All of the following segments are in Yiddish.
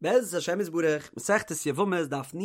בעזרת השם יתברך, מסכת יבמות דף נ,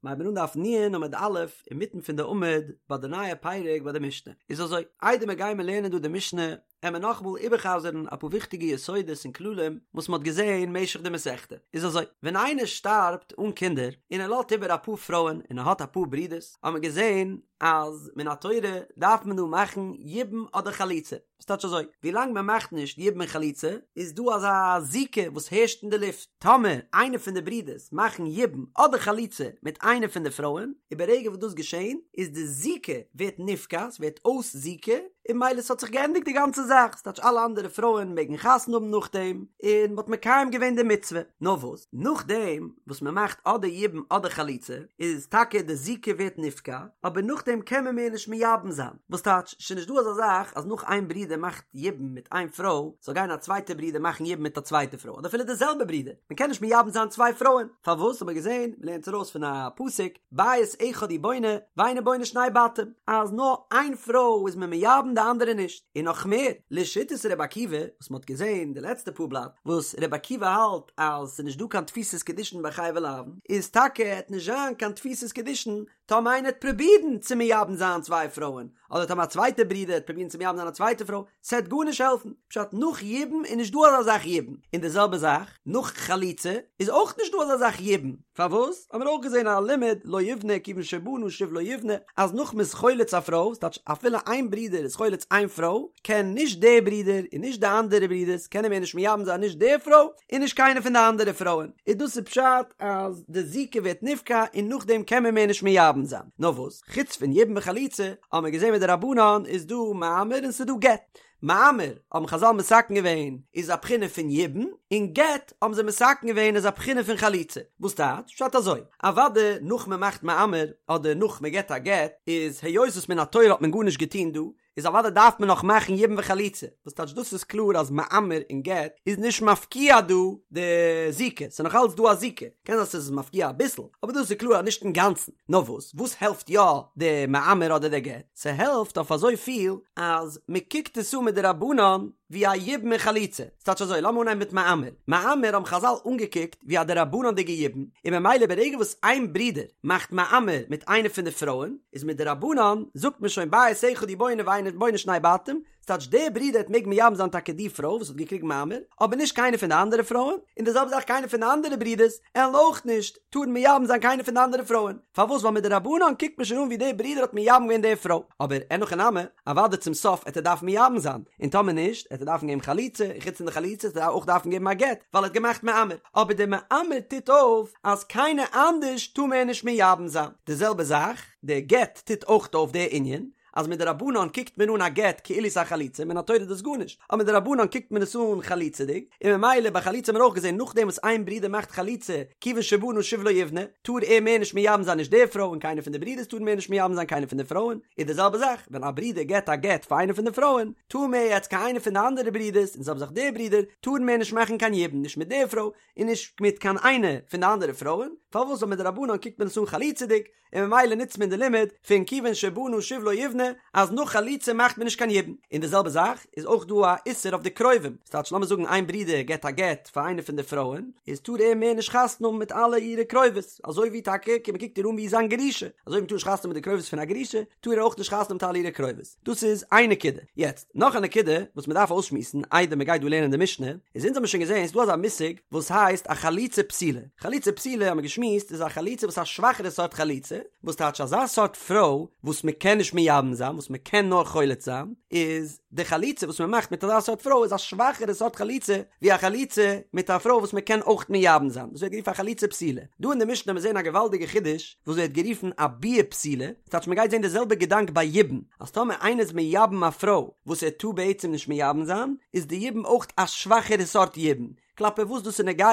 מ'הייבן אן דף נ עמוד א', אינמיטן פון די עמוד, ביי די נייע פרק ביי די משנה. איז אזוי, איידער מיר גיימער לערנען דא די משנה, עמער נאכאמאל איבערחזר'ן אפאר וויכטיגע יסודות און כללים וואס מ'האט געזען משך די מסכתא. איז אזוי, ווען איינער שטארבט אן קינדער, און ער לאזט איבער אפאר פרויען און ער האט אפאר ברודערס, האט מען געזען אז מן התורה דארף מען דא מאכן יבום אדער חליצה. ס'טייטש אזוי, ווילאנג מען מאכט נישט יבום און חליצה, איז דא אזא זיקה וואס הערשט אין די לופט. טאמער איינער פון די ברידערס מאכן יבום אדער חליצה מיט איינע פון די פרויען, איז ברגע וואס דאס געשען, איז די זיקה ווערט נפקע, ס'ווערט אויס זיקה, און ממילא ס'האט זיך געענדיגט די גאנצע זאך, ס'טייטש אלע אנדערע פרויען מעגן חתונה האבן נאכדעם, און מ'האט מקיים געווען די מצוה. נאר וואס, נאכדעם וואס מ'מאכט אדער יבום אדער חליצה, איז טאקע די זיקה ווערט נפקע, אבער נאכדעם קען מען מער נישט מייבם זיין. וואס טייטש, ס'איז נישט דא אזא זאך אז נאך איין ברודער מאכט יבום מיט איין פרוי, זאל גיין א צווייטע ברודער מאכן יבום מיט א צווייטע פרוי, אדער אפילו די זעלבע ברודער, מען קען נישט מייבם זיין צוויי פרויען, פארוואס האט מען געזען, מען לערנט ארויס פון א פסוק, בית אחד הוא בונה, ואינו בונה שני בתים, אז נאר איין פרוי איז מען מייבם די אנדערע נישט, און נאך מער, לשיטת ר' עקיבא, וואס מען האט געזען די לעצטע פאר בלאט, וואס ר' עקיבא האלט אז ס'איז נישט דא קיין תפיסת קידושין ביי חייבי לאוין, איז טאקע עט נישט זיין קיין תפיסת קידושין טאמער איינער העט פרובירן צו מייבם זיין צוויי פרויען, אדער טאמער א צווייטער ברודער העט פרובירן צו מייבם זיין א צווייטע פרוי, ס'העט גארנישט העלפן, פשט נאך יבום איז נישט דא אזא זאך יבום, און די זעלבע זאך נאך חליצה איז אויך נישט דא אזא זאך יבום, פארוואס? האבן מיר אויך געזען א לימוד לא יבנה כיוון שבנה שוב לא יבנה, אז נאך מ'איז חולץ א פרוי, ס'טייטש אפילו איין ברודער איז חולץ איין פרוי, קען נישט דער ברודער און נישט די אנדערע ברודערס קענען מער נישט מייבם זיין נישט די פרוי, און נישט קיינע פון די אנדערע פרויען, איז דאס איז פשט אז די זיקה ווערט נפקע און נאכדעם קען מען מער נישט מייבם זיין, נאר וואס חוץ פון יבום וחליצה האבן מיר געזען מדרבנן איז דא מאמר און ס'איז דא גט, מאמר האבן חזל מתקן געווען איז א בחינה פון יבום, און גט האבן זיי מתקן געווען איז א בחינה פון חליצה, וואס טייטש? פשט אזוי, אוודאי נאך מען מאכט מאמר אדער נאך מען געט א גט איז היות וואס מן התורה האט מען גארנישט געטון דא, איז אוודאי דארף מען נאך מאכן יבום וחליצה, וואס טייטש דאס איז קלאר אז מאמר און גט איז נישט מפקיע דא די זיקה, ס'איז נאך אלץ דא א זיקה, קען זיין ס'איז מפקיע אביסל, אבער דאס איז קלאר אז נישט אינגאנצן, נאר וואס וואס העלפט יא די מאמר אדער די גט? ס'העלפט אויף אזוי פיל אז מ'קוקט עס אן מדרבנן ווי א יבום און חליצה, ס'טייטש אזוי, לאמיר אנהייבן מיט מאמר, מאמר האבן חזל אנגעקוקט ווי א דרבנן'דיגע יבום, און ממילא ברגע וואס איין ברודער מאכט מאמר מיט איינע פון די פרויען, איז מדרבנן זאגט מען שוין בית אחד הוא בונה ואינו בונה שני בתים, ס'טייטש דער ברודער העט מעגן מייבם זיין טאקע די פרוי וואס האט געקריגן מאמר, אבער נישט קיינע פון די אנדערע פרויען, און די זעלבע זאך קיינע פון די אנדערע ברודערס עלן אויך נישט טארן מייבם זיין קיינע פון די אנדערע פרויען, פארוואס ווייל מדרבנן קוקט מען שוין אן ווי דער ברודער האט מייבם געווען די פרוי, אבער אין הכי נמי, אוודאי צום סוף עט ער דארפן מייבם זיין, און טאמער נישט, עט ער דארפן געבן חליצה, און חוץ פון די חליצה עט ער אויך דארפן געבן א גט, ווייל ער האט געמאכט מאמר, אבער דער מאמר טוט אויף אז קיינער אנדערש טאר מער נישט מייבם זיין, די זעלבע זאך, דער גט טוט אויך אויף די ענין, אז מדרבנן קוקט מען אן א גט כאילו ס'איז א חליצה, מן התורה איז דאס גארנישט, אבער מדרבנן קוקט מען עס אן חליצה'דיג, און ממילא ביי חליצה האט מען אויך געזען נאכדעם וואס איין ברודער מאכט חליצה כיוון שבנה שוב לא יבנה, טאר ער מער נישט מייבם זיין נישט די פרוי און קיינער פון די ברודערס טארן מער נישט מייבם זיין קיינער פון די פרויען, איז די זעלבע זאך ווען א ברודער געט א גט פאר איינע פון די פרויען, טאר מער יעצט קיין איינער פון די אנדערע ברודערס און די זעלבע זאך די ברודער, טארן מער נישט מאכן קיין יבום נישט מיט די פרוי און נישט מיט קיין איינע פון די אנדערע פרויען, פארוואס ווייל מדרבנן קוקט מען עס אן חליצה'דיג, און ממילא נוצט מען די לימוד פון כיוון שבנה שוב לא יבנה אז נאך חליצה מאכט מען נישט קיין יבום, און די זעלבע זאך איז אויך דא א איסור אויף די קרובים, ס'טייטש לאמיר זאגן איין ברודער געט א גט פאר איינע פון די פרויען, איז טאר ער מער נישט חתונה האבן מיט אלע אירע קרובות, אזוי ווי טאקע מען קוקט איר אן ווי זיין גרושה, אזוי ווי מ'טאר נישט חתונה האבן מיט די קרובות פון א גרושה, טאר ער אויך נישט חתונה האבן מיט אלע אירע קרובות. דאס איז איין נקודה. יעצט, נאך א נקודה וואס מען דארף אויסשמועסן איידער מען גייט דא לערנען די משנה, איז אונז האבן שוין געזען ס'איז דא אזא מושג וואס הייסט א חליצה פסולה. חליצה פסולה האבן מיר געשמועסט איז א חליצה וואס איז א שוואכערע סארט חליצה, וואס טייטש אזא סארט פרוי וואס מען קען נישט מייבם זיין, וואס מען קען נאר חולץ זיין, איז די חליצה וואס מען מאכט מיט אזא סארט פרוי איז א שוואכערע סארט חליצה ווי א חליצה מיט א פרוי וואס מען קען אויך מייבם זיין, דאס ווערט גערופן א חליצה פסולה. דא אין די משנה האבן מיר זען א געוואלדיגע חידוש וואס ווערט גערופן א ביאה פסולה, ס'טייטש מ'גייט זען די זעלבע געדאנק ביי יבום, אז טאמער איינער איז מייבם א פרוי וואס ער טאר בעצם נישט מייבם זיין, איז די יבום אויך א שוואכערע סארט יבום, כלפי וואס דאס איז נוגע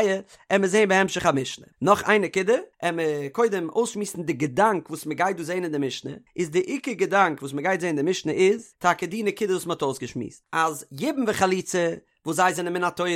עמיר זען בהמשך המשנה. נאך איין נקודה, עמיר קודם אויסשמועסן די געדאנק וואס מ'גייט דא זען אין די משנה, איז די עיקר געדאנק וואס מ'גייט זען אין די משנה איז, טאקע די נקודה וואס מ'האט אויסגעשמועסט, אז יבום וחליצה וואס זיי זענען מן התורה,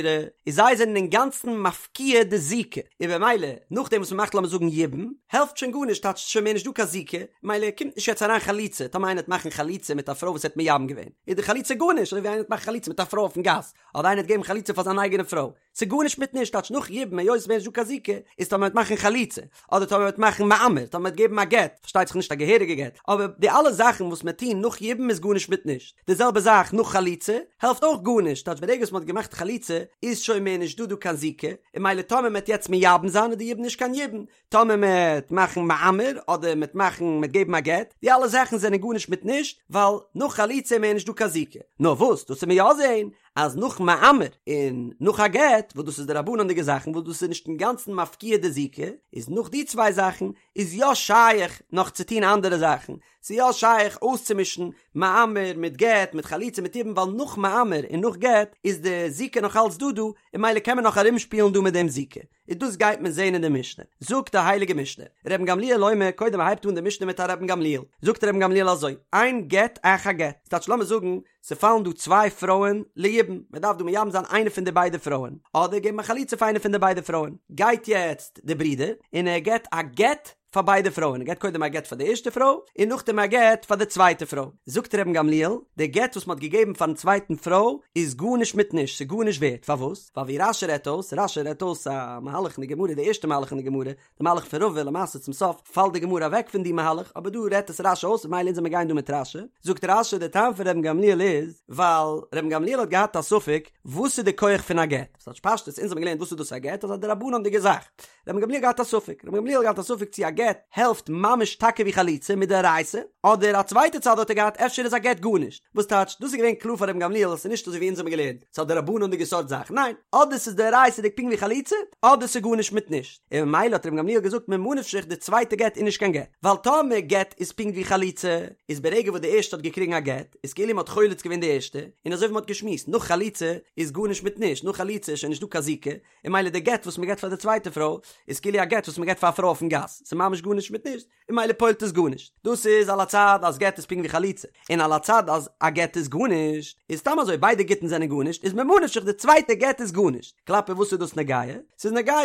איז זיי זענען אינגאנצן מפקיע די זיקה, און במילא נאכדעם וואס מ'מאכט לאמיר זאגן יבום, העלפט שוין גארנישט טייטש ס'איז שוין מער נישט דא קיין זיקה, ממילא קומט נישט יעצט אריין חליצה, טאמער איינער וועט מאכן חליצה מיט א פרוי וואס ער האט מייבם געווען, איז די חליצה גארנישט, אזוי ווי איינער וועט מאכן חליצה מיט א פרוי אויפן גאס, אדער איינער וועט געבן חליצה פאר זיין אייגענע פרוי. ס'איז גארנישט מיט נישט, טייטש נאך יבום היות ס'איז מער נישט דא קיין זיקה, איז טאמער מ'וועט מאכן חליצה, אדער טאמער מ'וועט מאכן מאמר, טאמער מ'וועט געבן א גט, פארשטייט זיך נישט א געהעריגע גט, אבער די אלע זאכן וואס מ'וועט טון נאך יבום איז גארנישט מיט נישט. די זעלבע זאך נאך חליצה, העלפט אויך גארנישט, טייטש ברגע וואס מ'האט געמאכט חליצה איז שוין מער נישט דא דא קיין זיקה, און ממילא טאמער מ'וועט יעצט מייבם זיין איז די יבום נישט קיין יבום, טאמער מ'עט מאכן מאמר אדער מ'עט מאכן מ'עט געבן א גט, די אלע זאכן זענען גארנישט מיט נישט, ווייל נאך חליצה איז מער נישט דא קיין זיקה. נאר וואס, דאס וועט מען יא זעהן, אז נאך מאמר און נאך א גט, וואס דאס איז דרבנן'דיגע זאכן וואס דאס איז נישט אינגאנצן מפקיע די זיקה, איז נאך די צוויי זאכן איז יא שייך נאך צו טון אנדערע זאכן, ס'איז יא שייך אויסצומישן מאמר מיט גט מיט חליצה מיט יבום ווייל נאך מאמר און נאך גט איז די זיקה נאך אלץ דא דא און ממילא קען מען נאך ארומשפילן דא מיט דעם זיקה. און דאס גייט מען זעהן אין די משנה. זאגט די הייליגע משנה, רבן גמליאל אומר, קודם הייבט אן די משנה מיט א רבן גמליאל, זאגט רבן גמליאל אזוי, אין גט אחר גט, ס'טייטש לאמיר זאגן, ס'פאלן דא צוויי פרויען ליבום, מ'דארף דא מייבם זיין איינע פון די ביידע פרויען, אדער געבן א חליצה פאר איינע פון די ביידע פרויען, גייט יעצט די ברודער און ער געבט א גט פאר ביידע פרויען, ער געבט קודם א גט פאר די ערשטע פרוי, און נאכדעם א גט פאר די צווייטע פרוי. זאגט רבן גמליאל, די גט וואס מען האט געגעבן פארן צווייטן פרוי איז גארנישט מיט נישט, ס'איז גארנישט ווערט, פארוואס? ווייל ווי רש"י רעדט אויס, רש"י רעדט אויס א מהלך אין די גמרא, די ערשטע מהלך אין די גמרא, די מהלך פון רבא, למעשה צום סוף פאלט די גמרא אוועק פון די מהלך, אבער דא רעדט עס רש"י אויס, ממילא אונז וועמיר גיין דא מיט רש"י. זאגט רש"י, די טעם פון רבן גמליאל איז, ווייל רבן גמליאל האט געהאט א ספק, וואס איז די כח פון א גט? ס'טייטש פשטות, אונז האבן געלערנט וואס איז דאס א גט, אז א דרבנן'דיגע זאך. רבן גמליאל געהאט א ספק, רבן גמליאל האט געהאט א ספק צו א גט העלפט ממש טאקע ווי חליצה מדאורייתא, אדער א צווייטע צד האט ער געהאט אפשר איז א גט גארנישט, וואס טייטש דאס איז געווען קלאר פאר רבן גמליאל אז ס'איז נישט אזוי ווי אונז האבן געלערנט, ס'איז א דרבנן'דיגע סארט זאך, ניין, אדער ס'איז דאורייתא'דיג פונקט ווי חליצה, אדער ס'איז גארנישט מיט נישט, און ממילא האט רבן גמליאל געזאגט ממה נפשך די צווייטע גט איז נישט קיין גט, ווייל טאמער גט איז פונקט ווי חליצה, איז ברגע וואס די ערשטע האט געקריגן א גט, איז כאילו מ'האט חולץ געווען די ערשטע, און אזוי ווי מ'האט געשמועסט, נאך חליצה איז גארנישט מיט נישט, נאך חליצה איז שוין נישט דא קיין זיקה, און ממילא די גט וואס מ'געט פאר די צווייטע פרוי איז כאילו א גט וואס מ'געט פאר א פרוי אויפן גאס, ס'איז ממש גארנישט מיט נישט, און ממילא פועל'ט עס גארנישט. דאס איז על הצד אז גט איז פונקט ווי חליצה, און על הצד אז א גט איז גארנישט, איז סתם אזוי ביידע גיטין זענען גארנישט, איז ממה נפשך די צווייטע גט איז גארנישט. כלפי וואס איז דאס נוגע? ס'איז נוגע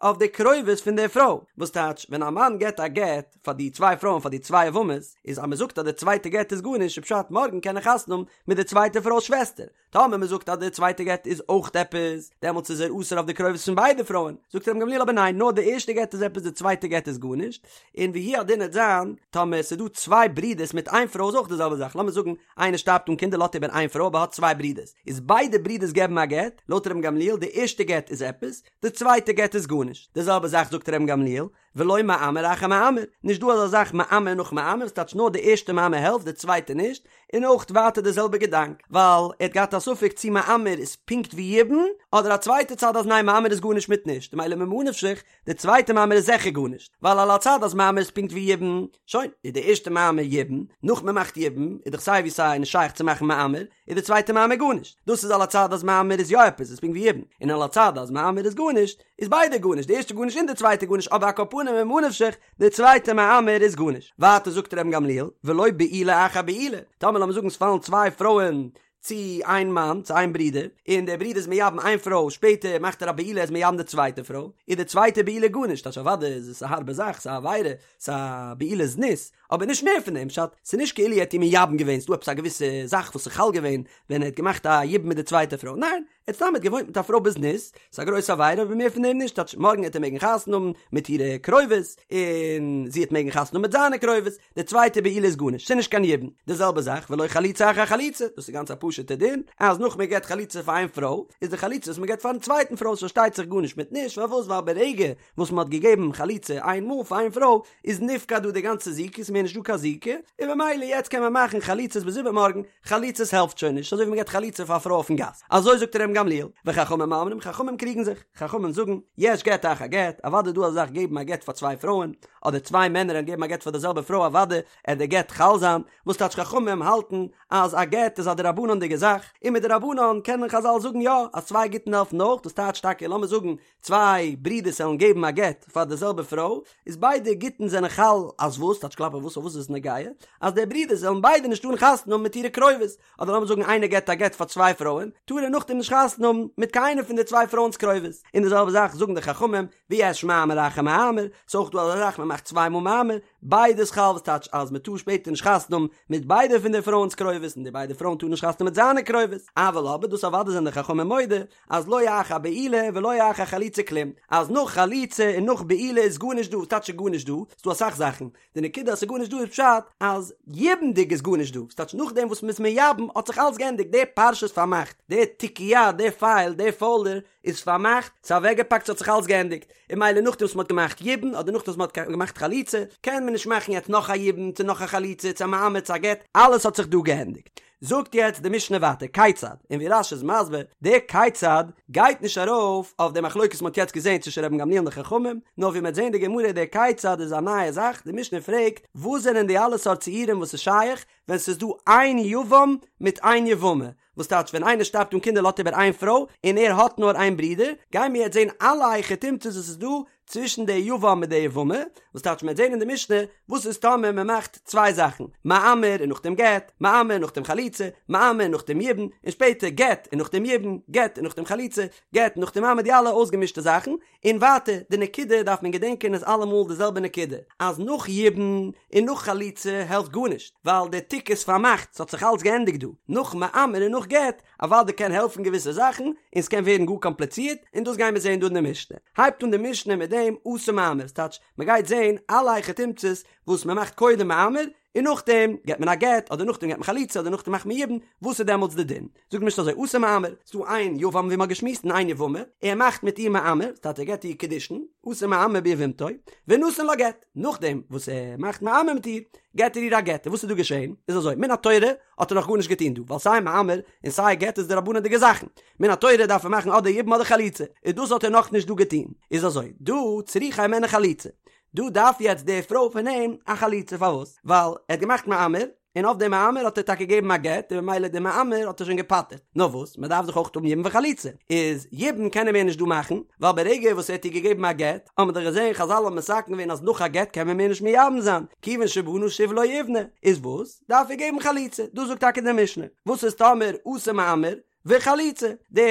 אויף די קרובות פון די פרוי, וואס טייטש ווען א מאן געט א גט פאר די צוויי פרויען פאר די צוויי יבמות, איז אז מ'זאגט אז די צווייטע גט איז גארנישט איז פשט מארגן קען ער חתונה האבן מיט די צווייטע פרוי'ס שוועסטער, טאמער מען זאגט אז די צווייטע גט איז אויך עפעס, דעמאלטס איז ער אסור אויף די קרובות פון ביידע פרויען, זאגט רבן גמליאל אבער ניין, נאר די ערשטע גט איז עפעס די צווייטע גט איז גארנישט, און והוא הדין עט זיין, טאמער ס'איז דא צוויי ברידערס מיט איין פרוי איז אויך די זעלבע זאך, לאמיר זאגן איינער שטארבט אן קינדער לאזט איבער איין פרוי אבער האט צוויי ברידערס, איז ביידע ברידערס געבן א גט, לויט רבן גמליאל די ערשטע גט איז עפעס, די צווייטע גט איז גארנישט, די זעלבע זאך זאגט רבן גמליאל, ולא מאמר אחר מאמר, נישט דא אזא זאך מאמר נאך מאמר, ס'טייטש נאר די ערשטע מאמר העלפט די צווייטע נישט, און אויך ווייטער די זעלבע געדאנק, ווייל ער האט געהאט א ספק צי מאמר איז פונקט ווי יבום, אדער א צווייטע צד אז ניין מאמר איז גארנישט מיט נישט, ממילא ממה נפשך, די צווייטע מאמר איז זיכער גארנישט, ווייל על הצד אז מאמר איז פונקט ווי יבום, שוין, איז די ערשטע מאמר יבום, נאך מ'מאכט יבום, איז דאך סיי ווי סיי נישט שייך צו מאכן מאמר, איז די צווייטע מאמר גארנישט, דאס איז על הצד אז מאמר איז יא עפעס, איז פונקט ווי יבום, און על הצד אז מאמר איז גארנישט, איז ביידע גארנישט, די ערשטע גארנישט און די צווייטע גארנישט, אבער על כל פנים ממה נפשך, די צווייטע מאמר איז גארנישט. ווייטער זאגט רבן גמליאל, ולא בעילה אחר בעילה, טאמער לאמיר זאגן ס'פאלן צוויי פרויען צו איין מאן, צו איין ברודער, און דער ברודער איז מייבם איין פרוי, שפעטער מאכט ער א בעילה ער איז מייבם די צווייטע פרוי, איז די צווייטע בעילה גארנישט, טייטש אוודאי איז עס א הארבע זאך, ס'איז א עבירה, ס'איז א בעילת זנות, אבער נישט מער פון דעם, פשט, ס'איז נישט כאילו ער האט איר מייבם געווען, ס'דא עפעס א געוויסע זאך וואס איז חל געווען ווען ער האט געמאכט א יבום מיט די צווייטע פרוי, ניין, ער האט סתם האט געוואוינט מיט א פרוי בזנות, ס'איז א גרויסע עבירה אבער מער פון דעם נישט, טייטש מארגן העט ער מעגן חתונה האבן מיט אירע קרובות, און זי העט מעגן חתונה האבן מיט זיינע קרובות, די צווייטע בעילה איז גארנישט, ס'איז נישט קיין יבום, די זעלבע זאך ולא חליצה אחר חליצה, דאס איז גאנץ א פשוט'ע דין, אז נאך מען געבט חליצה פאר איין פרוי, איז די חליצה וואס מען געבט פארן צווייטן פרוי איז פארשטייט זיך גארנישט מיט נישט, פארוואס ווייל ברגע וואס מען האט געגעבן חליצה איין מאל פאר איין פרוי איז נפקע דא די גאנצע זיקה ס'איז מער נישט דא קיין זיקה און במילא יעצט קען מען מאכן חליצות ביז איבערמארגן חליצות העלפט שוין נישט אזוי ווי מען געבט חליצה פאר א פרוי אויפן גאס אזוי זאגט רבן גמליאל וחכמים אומרים חכמים קריגן זיך חכמים זאגן יש גט אחר גט אוודאי איז דא אזא זאך געבן א גט פאר צוויי פרויען אדער צוויי מענער וועלן געבן א גט פאר די זעלבע פרוי אוודאי עט די גט חל זיין וואס טייטש חכמים האלטן אז א גט איז א דרבנן'דיגע זאך און מדרבנן קענען חזל זאגן יא אז צוויי גיטין העלפן אויך דאס טייטש טאקע לאמיר זאגן צוויי ברידערס וועלן געבן א גט פאר די זעלבע פרוי, איז ביידע גיטין זענען חל אז וואס? טייטש כלפי וואס? אויף וואס איז עס נוגע? אז די ברידערס וועלן ביידע נישט טארן חתונה האבן מיט אירע קרובות, אדער לאמיר זאגן איינער געבט א גט פאר צוויי פרויען, טאר ער נאכדעם נישט חתונה חתונה האבן מיט קיינע פון די צוויי פרויען'ס קרובות, און די זעלבע זאך זאגן די חכמים, ויש מאמר אחר מאמר, ס'איז אויך דא אזא זאך מען מאכט צוויי מאל מאמר, ביידע איז חל וואס טייטש אז מען טאר שפעטער נישט חתונה האבן מיט ביידע פון די פרויען'ס קרובות און די ביידע פרויען טארן נישט חתונה האבן מיט זיינע קרובות, אבל אבער דאס אוודאי זענען די חכמים מודה אז לא אחר בעילה ולא אחר חליצה כלום, אז נאך חליצה און נאך בעילה איז גארנישט דא, וואס טייטש איז גארנישט דא? ס'דא אסאך זאכן, די נקודה אז ס'איז גארנישט דא איז פשט אז יבומ'דיג איז גארנישט דא, ס'טייטש נאכדעם וואס מ'איז מייבם האט זיך אלס געענדיגט, די פרשה איז פארמאכט, די תיקיה, די פייל, די פאלדער איז פארמאכט, ס'איז אוועקגעפאקט, ס'האט זיך אלס געענדיגט, און ממילא נאכדעם וואס מ'האט געמאכט יבום אדער נאכדעם וואס מ'האט געמאכט חליצה, קען מען נישט מאכן יעצט נאך א יבום צו נאך א חליצה צו א מאמר צו א גט, אלעס האט זיך דא געענדיגט. זאגט יעצט די משנה ווייטער כיצד, און ווי רש"י איז מסביר, די כיצד גייט נישט ארויף אויף די מחלוקת וואס מ'האט יעצט געזען צווישן רבן גמליאל און די חכמים, נאר ווי מ'וועט זען די גמרא די כיצד איז א נייע זאך, די משנה פרעגט וואס זענען די אלע סארט ציורים וואס איז שייך ווען ס'איז דא איין יבם מיט איין יבמה, וואס טייטש ווען איינער שטארבט אן קינדער לאזט איבער איין פרוי און ער האט נאר איין ברודער, גייען מיר יעצט זען אלע היכי תמצא'ס וואס איז דא צווישן די יבם מיט די יבמה, וואס טייטש מ'וועט זען אין די משנה וואס איז טאמער מ'מאכט צוויי זאכן, מאמר און נאכדעם גט, מאמר און נאכדעם חליצה, מאמר און נאכדעם יבום, און שפעטער גט און נאכדעם יבום, גט און נאכדעם חליצה, גט און נאכדעם מאמר די אלע אויסגעמישטע זאכן, און ווייטער, די נקודה דארף מען געדענקען איז אלעמאל די זעלבע נקודה, אז נאך יבום און נאך חליצה העלפט גארנישט, ווייל די תיק איז פארמאכט, ס'האט זיך אלץ געענדיגט דא, נאך מאמר און נאך גט, אוודאי קען העלפן געוויסע זאכן, און ס'קען ווערן גאר קאמפליצירט, און דאס גיימיר זען דא אין די משנה. הייבט אן די משנה מיט דעם עשה מאמר, ס'טייטש, מ'גייט זען אלע היכי תמצא'ס וואס מ'מאכט קודם מאמר, און נאכדעם געט מען א גט, אדער נאכדעם געט מען חליצה, אדער נאכדעם מאכט מען יבום, וואס איז דעמאלטס די דין? זאגט די משנה אזוי, עשה מאמר, ס'דא איין יבם ווי מ'האט געשמועסט און איין יבמה, ער מאכט מיט איר מאמר, ס'טייטש ער געט איר קידושין, עשה מאמר ביבמתו, ונתן לה גט, נאכדעם וואס ער מאכט מאמר מיט איר, געט ער איר א גט, און וואס איז דא געשען? איז אזוי, מן התורה האט ער נאך גארנישט געטון דא, ווייל סיי מאמר און סיי גט איז דרבנן'דיגע זאכן, מן התורה דארף ער מאכן אדער יבום אדער חליצה, און דאס האט ער נאכנישט דא געטון, איז אזוי, דא צריכה הימנו חליצה, דא דארף יעצט די פרוי פון אים א חליצה, פארוואס? ווייל ער האט געמאכט מאמר, און אויף די מאמר האט ער טאקע געגעבן א גט, און ממילא די מאמר האט ער שוין געפטר'ט, נאר וואס, מען דארף דאך אויך האבן יבום וחליצה, איז יבום קען ער מער נישט דא מאכן, ווייל ברגע וואס ער האט איר געגעבן א גט, האט מען דאך געזען חזל האבן מתקן געווען אז נאך א גט קען מען מער נישט מייבם זיין, כיוון שבנה שוב לא יבנה, איז וואס? דארף ער געבן חליצה, דאס זאגט טאקע די משנה, וואס איז טאמער עשה מאמר וחליצה, די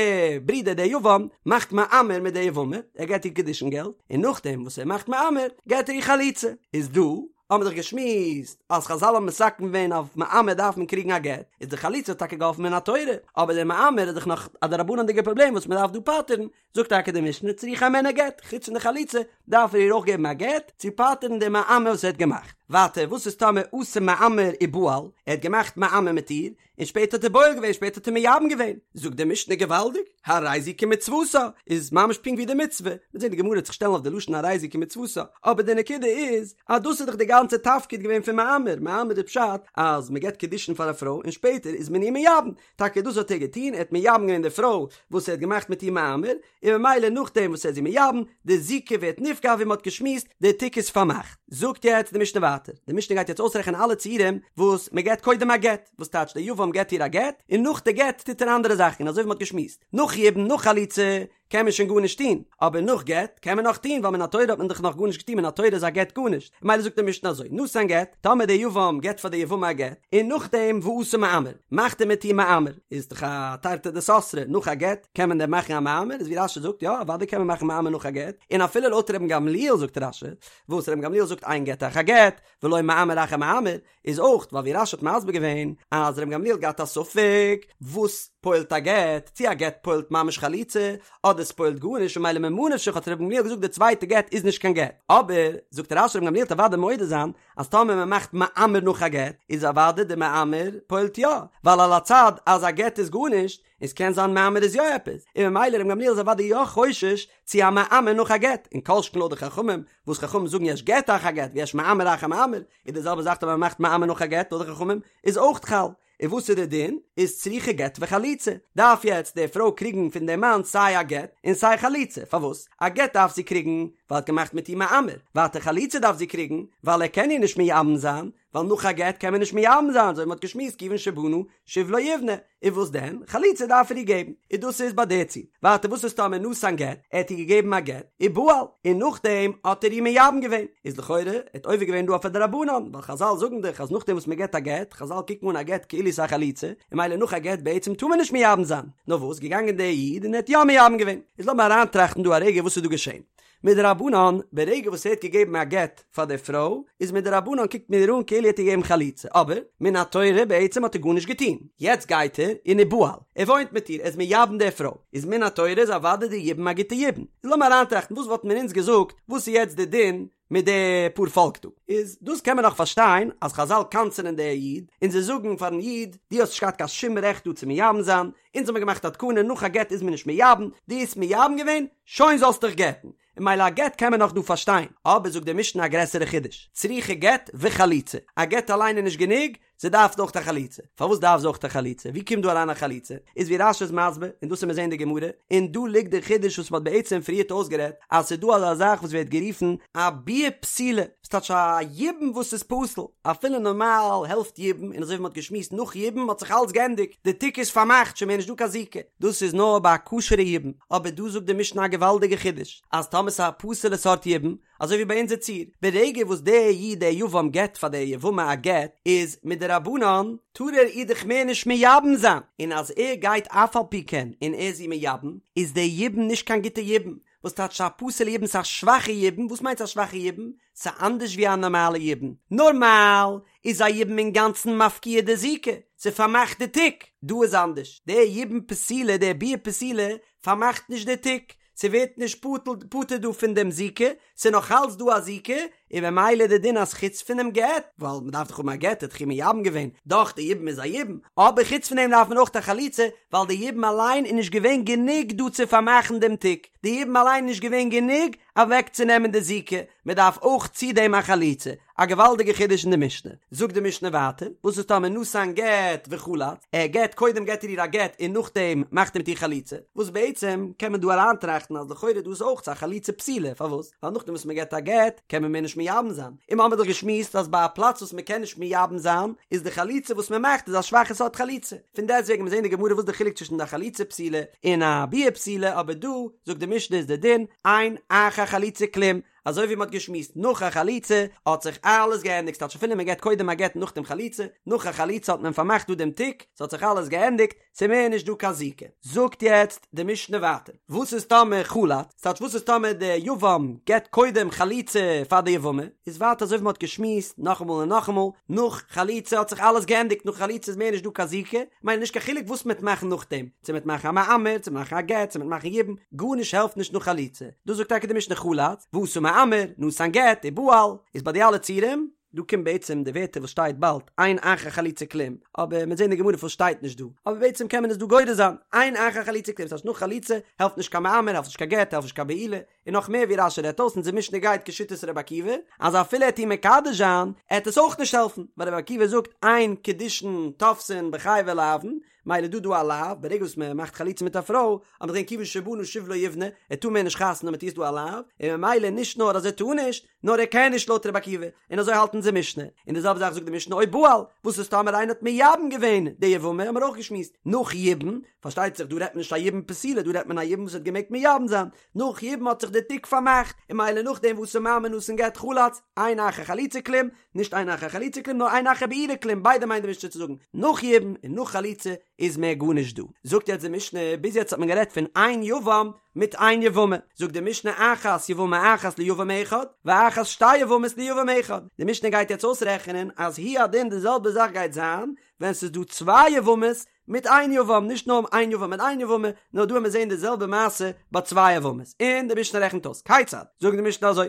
ברודער דער יבם מאכט מאמר מיט די יבמה, ער געט איר קידושין געלט, און נאכדעם וואס ער מאכט מאמר געט ער איר חליצה, איז דא האבן מיר דאך געשמועסט אז חזל האבן מתקן געווען אויף מאמר דארף מען קריגן א גט, איז די חליצה האט טאקע געהאלפן מן התורה, אבער דער מאמר איז דאך נאך א דרבנן'דיגע פראבלעם וואס מען דארף דא פטר'ן, זאגט טאקע די משנה צריכה הימנו גט, חוץ פון די חליצה דארף ער איר אויך געבן א גט צו פטר'ן די מאמר וואס ער האט געמאכט. ווייטער וואס איז טאמער עשה מאמר ובעל, ער האט געמאכט מאמר מיט איר, און שפעטער האט ער בועל געווען, שפעטער האט ער מייבם געווען, זאגט די משנה געוואלדיג, הרי זו כמצוותה, איז ממש פונקט ווי די מצוה, מ'וועט זען די גמרא וועט זיך שטעלן אויף די לשון הרי זו כמצוותה, אבער די נקודה איז אז דאס איז דאך די גאנצע תפקיד געווען פון מאמר, מאמר איז פשט אז מ'געבט קידושין פאר א פרוי און שפעטער איז מען איר מייבם, טאקע דאס האט ער געטון, ער האט מייבם געווען די פרוי וואס ער האט געמאכט מיט איר מאמר, און ממילא נאכדעם וואס ער איז איר מייבם, די זיקה ווערט נפקע ווי מען האט געשמועסט, די תיק איז פארמאכט. זאגט יעצט די משנה ווייטער, די משנה גייט יעצט אויסרעכענען אלע ציורים וואס מען געבט קודם א גט, וואס טייטש די יבם געבט איר א גט, און נאך די גט טוט ער אנדערע זאכן, און אזוי ווי מען האט געשמועסט, נאך יבום נאך חליצה קען מען שוין גארנישט טון, אבער נאך גט קען מען נאך טון, ווייל מן התורה האט מען דאך נאך גארנישט געטון, מן התורה איז א גט גארנישט, ממילא זאגט די משנה אזוי, נתן גט, טאמער די יבם געבט פאר די יבמה א גט, און נאכדעם ועשה מאמר, מאכט ער מיט איר מאמר, איז דאך א תרתי דסתרי, נאך א גט קען מען דען מאכן א מאמר, איז ווי רש"י זאגט, יא אוודאי קען מען מאכן מאמר נאך א גט, און אפילו לויט רבן גמליאל זאגט רש"י, וואס רבן גמליאל זאגט אין גט אחר גט, ולא מאמר אחר מאמר, איז אויך ווייל ווי רש"י האט מסביר געווען אז רבן גמליאל האט געהאט א ספק וואס פועל'ט א גט, צו א גט פועל'ט ממש חליצה, אדער ס'פועל'ט גארנישט און ממילא ממה נפשך האט רבן גמליאל געזאגט די צווייטע גט איז נישט קיין גט, אבער זאגט רש"י רבן גמליאל וועט אוודאי מודה זיין אז טאמער מען מאכט מאמר נאך א גט איז אוודאי די מאמר פועל'ט יא, ווייל על הצד אז א גט איז גארנישט און ס'קען זיין מאמר איז יא עפעס, און ממילא רבן גמליאל איז אוודאי יא חושש צו א מאמר נאך א גט, און כל שכן לויט די חכמים וואס חכמים זאגן יש גט אחר גט ויש מאמר אחר מאמר, איז די זעלבע זאך טאמער מען מאכט מאמר נאך א גט לויט די חכמים איז אויך חל, און וואס איז די דין? איז צריכה גט וחליצה, דארף יעצט די פרוי קריגן פון די מאן סיי א גט און סיי חליצה, פארוואס? א גט דארף זי קריגן ווייל ער האט געמאכט מיט איר מאמר, ווייטער חליצה דארף זי קריגן ווייל ער קען איר נישט מייבם זיין, ווייל ווייל נאך א גט קען מען נישט מייבם זיין, אזוי ווי מ'האט געשמועסט כיוון שבנה שוב לא יבנה, און וואס דען? חליצה דארף ער איר געבן, און דאס איז ביי די ציור. ווייטער וואס איז טאמער נתן גט, ער האט איר געגעבן א גט, ובעל, און נאכדעם האט ער איר מייבם געווען, איז לכאורה ער האט עובר געווען דא אויף א דרבנן, ווייל חזל זאגן דאך אז נאכדעם וואס מ'געט א גט, חזל קוקן אן א גט כאילו ס'איז א חליצה, און ממילא נאך א גט בעצם טאר מען נישט מייבם זיין, נאר וואס געגאנגען דער איד און ער האט יא מייבם געווען. איז לאמיר אריינטראכטן דא א רגע וואס איז דא געשען. מדרבנן, ברגע וואס ער האט געגעבן א גט פאר די פרוי, איז מדרבנן קוקט מען איר אן כאילו ער האט איר געגעבן חליצה, אבער מן התורה בעצם האט ער גארנישט געטון, יעצט גייט ער און ובעל, ער וואוינט מיט איר, ער איז מייבם די פרוי, איז מן התורה איז אוודאי די יבום א גוטע יבום. איז לאמיר אריינטראכטן וואס וואלטן מיר אונז געזאגט, וואס איז יעצט די דין מיט די פאר פאלק דא? איז דאס קען מען נאך פארשטיין אז חזל קנס'ענען די איד, און זיי זאגן פארן איד, דו האסט נישט געהאט קיין שום רעכט דא צו מייבם זיין, אונז האמיר געמאכט א תקנה נאך א גט איז מען נישט מייבם, דו האסט מייבם געווען, שוין זאלסט דיך גט'ן. און ממילא א גט קען מען נאך דא פארשטיין, אבער זאגט די משנה א גרעסערע חידוש, צריכה גט וחליצה, א גט אליין איז נישט גענוג, זי דארף אויך א חליצה. פארוואס דארף זי אויך א חליצה? ווי קומט דא אריין א חליצה? איז ווי רש"י איז מסביר, און דאס וועט מען זעהן אין די גמרא, און דא ליגט די חידוש וואס מען האט בעצם פריערט אויסגערעדט, אז ס'איז דא אזא זאך וואס ווערט גערופן א ביאה פסולה, וואס טייטש א יבום וואס איז פסול, אפילו נארמאל העלפט יבום, און אזוי ווי מען האט געשמועסט נאך יבום האט זיך אלץ געענדיגט, די תיק איז פארמאכט, שוין מער נישט דא קיין זיקה, דאס איז נאר ביי א כשר'ע יבום, אבער דא זאגט די משנה א געוואלדיגע חידוש, אז טאמער ס'איז א פסול'ע סארט יבום, אזוי ווי ביי אונזער ציור, ברגע וואס דער איד דער יבם געבט פאר דער יבמה א גט, איז מדרבנן טאר ער איר דאך מער נישט מייבם זיין, און אז ער גייט אף על פי כן און ער איז איר מייבם, איז דער יבום נישט קיין גוטע יבום, וואס טייטש א פסול'ע יבום? ס'איז א שוואכע יבום, וואס מיינט א שוואכע יבום? ס'איז אנדערש ווי א נארמאלע יבום, נארמאל איז א יבום אינגאנצן מפקיע די זיקה, ס'פארמאכט די תיק, דא איז אנדערש, דער יבום פסולה, דער ביאה פסולה, פארמאכט נישט די תיק, ס'ווערט נישט פטור דא פון דעם זיקה, ס'איז נאך אלץ דא א זיקה, און ממילא די דין אז חוץ פונעם גט, ווייל מ'דארף דאך האבן א גט, ער האט דאך איר מייבם געווען, דאך די יבום איז א יבום, אבער חוץ פון דעם דארף מען אויך א חליצה, ווייל די יבום אליין איז נישט געווען גענוג דא צו פארמאכן דעם תיק, די יבום אליין איז נישט געווען גענוג אוועקצונעמען די זיקה, מ'דארף אויך צו דעם א חליצה, א געוואלדיגע חידוש אין די משנה. זאגט די משנה ווייטער, וואס איז טאמער נתן גט וחלץ, ער געט, קודם געט ער איר א גט און נאכדעם מאכט ער מיט איר חליצה, וואס בעצם קען מען דא אריינטראכטן אז לכאורה דא איז אויך א חליצה פסולה, פארוואס? ווייל נאכדעם וואס מען געט א גט קען מען מער נישט מייבם זיין, און מ'האמיר דאך געשמועסט אז ביי א פלאץ וואס מען קען נישט מייבם זיין איז די חליצה וואס מען מאכט איז א שוואכע סארט חליצה, פון דעסטוועגן מיר זעהן אין די גמרא וואס די חילוק צווישן די חליצה פסולה און א ביאה פסולה, אבער דא זאגט די משנה איז די דין אין אחר חליצה כלום, אזוי ווי מען האט געשמועסט נאך א חליצה האט זיך אלעס געענדיגט ס'טייטש אפילו מען געט קודם א גט נאכדעם חליצה, נאך א חליצה האט מען פארמאכט דא דעם תיק, ס'האט זיך אלעס געענדיגט, ס'איז מער נישט דא קיין זיקה. זאגט יעצט די משנה ווייטער, וואס איז טאמער חלץ, ס'טייטש וואס איז טאמער די יבם געט קודם חליצה פאר די יבמה, איז ווייטער אזוי ווי מען האט געשמועסט נאכאמאל און נאכאמאל, נאך חליצה האט זיך אלעס געענדיגט, נאך חליצה איז מער נישט דא קיין זיקה, ממילא נישט קיין חילוק וואס מען וועט מאכן נאכדעם, צו מ'וועט מאכן א מאמר, צו מ'וועט מאכן א גט, צו מ'וועט מאכן יבום, גארנישט העלפט נישט נאך חליצה. דאס זאגט טאקע די משנה חלץ, ועשה מאמר, נתן גט, ובעל, איז ביי די אלע ציורים, דא קומט בעצם די ווערטער וואס שטייט באלד, אין אחר חליצה כלום, אבער מ'וועט זען אין די גמרא פארוואס שטייט נישט דא, אבער בעצם קען מען עס דא גורס זיין, אין אחר חליצה כלום, ס'הייסט נאך חליצה העלפט נישט קיין מאמר, העלפט נישט קיין גט, העלפט נישט קיין בעילה, און נאך מער ווי רש"י רעדט אויס אונזער משנה גייט כשיטת רבי עקיבא, אז אפילו ער וועט איר מקדש זיין, עט עס אויך נישט העלפן, ווייל רבי עקיבא זאגט אין קידושין תופסין בחייבי לאוין, מילא דא דא א לאו, ברגע וואס מען מאכט חליצה מיט א פרוי, האט מען געזען כיוון שבנה שוב לא יבנה, ער טאר מער נישט חתונה מיט איר איז דא א לאו, און ממילא נישט נאר אז ער טאר נישט, נאר ער קען נישט לויט רבי עקיבא, און אזוי האלט אונזער משנה, און די זעלבע זאך זאגט די משנה או בעל, וואס איז טאמער איינער האט מייבם געווען די יבמה, האמיר אויך געשמועסט, נאך יבום, פארשטייט זיך דא רעדט מען נישט א יבום פסולה, דא רעדט מען א יבום וואס האט געמעגט מייבם זיין, נאך יבום האט זיך די תיק פארמאכט, און מילא נאכדעם ועשה מאמר נתן גט חלץ, אין אחר חליצה כלום, נישט אין אחר חליצה כלום נאר אין אחר בעילה כלום, ביידע מיינט די משנה צו זאגן, נאך יבום און נאך חליצה איז מער גארנישט דא. זאגט יעצט די משנה, ביז יעצט האט מען גערעדט פון איין יבם מיט איין יבמה, זאגט די משנה אחת יבמה אחת ליבם אחד, ואחת שתי יבמות ליבם אחד, די משנה גייט יעצט אויסרעכענען אז הוא הדין די זעלבע זאך גייט זיין ווען ס'איז דא צוויי יבמות מיט איין יבם, נישט נאר איין יבם מיט איין יבמה, נאר דא וועט מען זען די זעלבע מעשה ביי צוויי יבמות, און די משנה רעכנט אויס, כיצד? זאגט די משנה אזוי,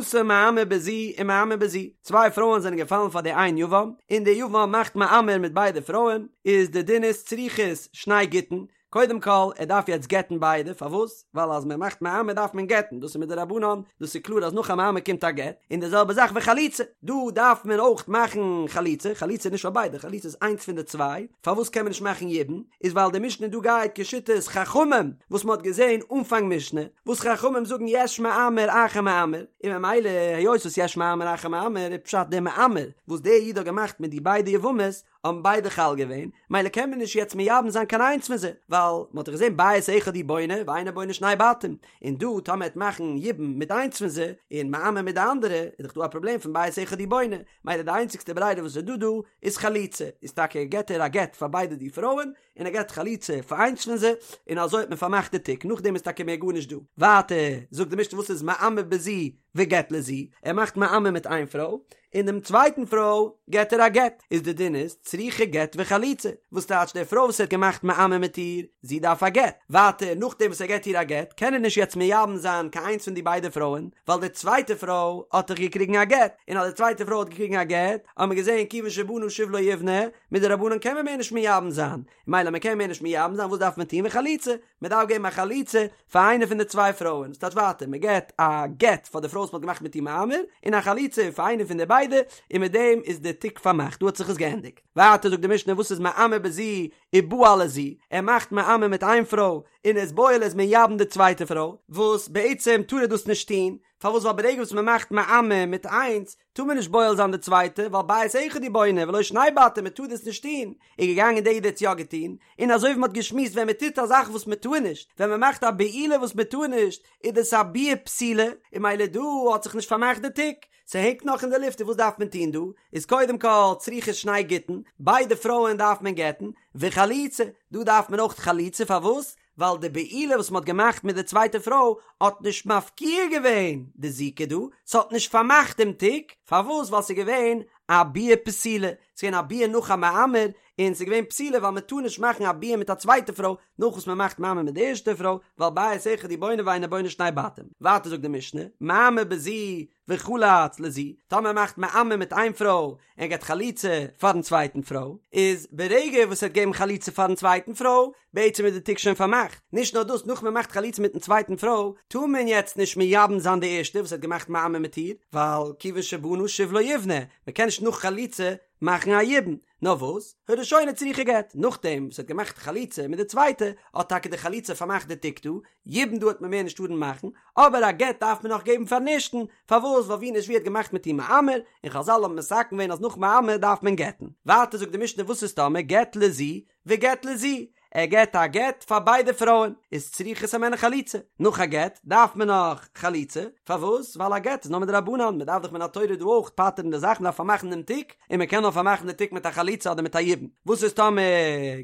עשה מאמר בזו ומאמר בזו, צוויי פרויען זענען געפאלן פאר די איין יבם, און די יבם מאכט מאמר מיט ביידע פרויען, איז די דין איז צריכות שני גיטין, קודם כל, ער דארף יעצט גט'ן ביידע, פארוואס? ווייל אז מען מאכט מאמר דארף מען גט'ן, דאס איז מדרבנן, דאס איז קלאר אז נאך א מאמר קומט א גט, און די זעלבע זאך וחליצה, דא דארף מען אויך מאכן חליצה, חליצה איז נישט פאר ביידע, חליצה איז איינס פון די צוויי, פארוואס קען מען נישט מאכן יבום? איז ווייל די משנה דא גייט כשיטת חכמים, וואס מען האט געזען אנפאנג משנה, וואס חכמים זאגן יש מאמר אחר מאמר, און ממילא היות וואס יש מאמר אחר מאמר איז פשט דער מאמר וואס דער איד האט געמאכט מיט די ביידע יבמות האבן ביידע חל געווען, מילא קען מען נישט יעצט מייבם זיין קיין איינס פון זיי, ווייל מען האט דאך געזען בית אחד הוא בונה ואינו בונה שני בתים, און דא טאמער מ'עט מאכן יבום מיט איינס פון זיי, און מאמר מיט די אנדערע, איז דאך דא א פראבלעם פון בית אחד הוא בונה, מילא די איינציגסטע ברירה וואס איז דא דא איז חליצה, איז טאקע געט ער א גט פאר ביידע די פרויען, און ער געט חליצה פאר איינס פון זיי, און אזוי האט מען פארמאכט די תיק, נאכדעם איז טאקע מער גארנישט דא. ווייטער זאגט די משנה וואס איז מאמר בזו וגט לזו, ער מאכט מאמר מיט איין פרוי, און דעם צווייטן פרוי געט ער א גט, איז די דין איז צריכה גט וחליצה, וואס טייטש די פרוי וואס ער האט געמאכט מאמר מיט איר, זי דארף א גט, ווייטער נאכדעם וואס ער געט איר א גט קען ער נישט יעצט מייבם זיין קיין איינס פון די ביידע פרויען, ווייל די צווייטע פרוי האט דאך געקריגן א גט, און אז די צווייטע פרוי האט געקריגן א גט, האט מען געזען כיוון שבנה שוב לא יבנה, מדרבנן קען מען מער נישט מייבם זיין, מילא מען קען מער נישט מייבם זיין וואס דארף מען טון וחליצה, מען דארף געבן א חליצה פאר איינע פון די צוויי פרויען, ס'טייטש ווייטער מען געבט א גט פאר די פרוי וואס מען האט געמאכט מיט איר מאמר, און א חליצה פאר איינע פון די ביידע, און מיט דעם איז די תיק פארמאכט, דא האט זיך עס געענדיגט. ווייטער זאגט די משנה וואס איז מאמר בזו ובעל לזו, ער מאכט מאמר מיט איין פרוי און איז בועל איז מייבם די צווייטע פרוי, וואס בעצם טאר ער דאס נישט טון, פארוואס ווייל ברגע וואס מען מאכט מאמר מיט איינס, טאר מען נישט בועל זיין די צווייטע, ווייל בית אחד הוא בונה ולא שני בתים, מען טאר דאס נישט טון, איז געגאנגען דער איד האט עס יא געטון, און אזוי ווי מען האט געשמועסט ווען מען טוט א זאך וואס מען טאר נישט, ווען מען מאכט א בעילה וואס מען טאר נישט, איז דאס א ביאה פסולה, און מילא דא האט זיך נישט פארמאכט די תיק, ס'הענגט נאך אין די לופט און וואס דארף מען טון דא, איז קודם כל צריכה שני גיטין, ביידע פרויען דארף מען גט'ן, וחליצה, דא דארף מען אויך חליצה, פארוואס? ווייל די בעילה וואס מ'האט געמאכט מיט די צווייטע פרוי האט נישט מפקיע געווען די זיקה דא, ס'האט נישט פארמאכט דעם תיק, פארוואס? ווייל ס'איז געווען א ביאה פסולה, ס'איז געווען א ביאה נאך א מאמר, און ס'איז געווען פסולה ווייל מ'טאר נישט מאכן א ביאה מיט א צווייטע פרוי נאך וואס מ'מאכט מאמר מיט די ערשטע פרוי, ווייל בית אחד הוא בונה ואינו בונה שני בתים. ווייטער זאגט די משנה, מאמר בזו וחלץ לזו, טאמער ער מאכט מאמר מיט איין פרוי און געבט חליצה פארן צווייטן פרוי, איז ברגע וואס ער האט געגעבן חליצה פארן צווייטן פרוי, בעצם איז די תיק שוין פארמאכט, נישט נאר דאס נאך מען מאכט חליצה מיטן צווייטן פרוי, טאר מען יעצט נישט מייבם זיין די ערשטע וואס האט געמאכט מאמר מיט איר, ווייל כיוון שבנה שוב לא יבנה, מען קען נישט נאך חליצה מאכן א יבום, נאר וואס, הראשונה צריכה גט, נאכדעם וואס ער האט געמאכט חליצה מיט די צווייטע, האט טאקע די חליצה פארמאכט די תיק דא, יבום דא האט מען מער נישט טארן מאכן, אבער א גט דארף מען נאך געבן פארן ערשטן, פארוואס ווייל ווי נישט ווי האט געמאכט מיט איר מאמר, און חזל האבן מתקן געווען אז נאך מאמר דארף מען גט'ן. ווייטער זאגט די משנה וואס איז טאמער גט לזו וגט לזו, ער געט א גט פאר ביידע פרויען, איז צריכות הימנו חליצה, נאך א גט דארף מען נאך חליצה, פארוואס? ווייל א גט איז נאר מדרבנן, מען דארף דאך מן התורה דא אויך פטר'ן די זאך, מען דארף פארמאכן דעם תיק, און מען קען נאר פארמאכן די תיק מיט א חליצה אדער מיט א יבום, וואס איז טאמער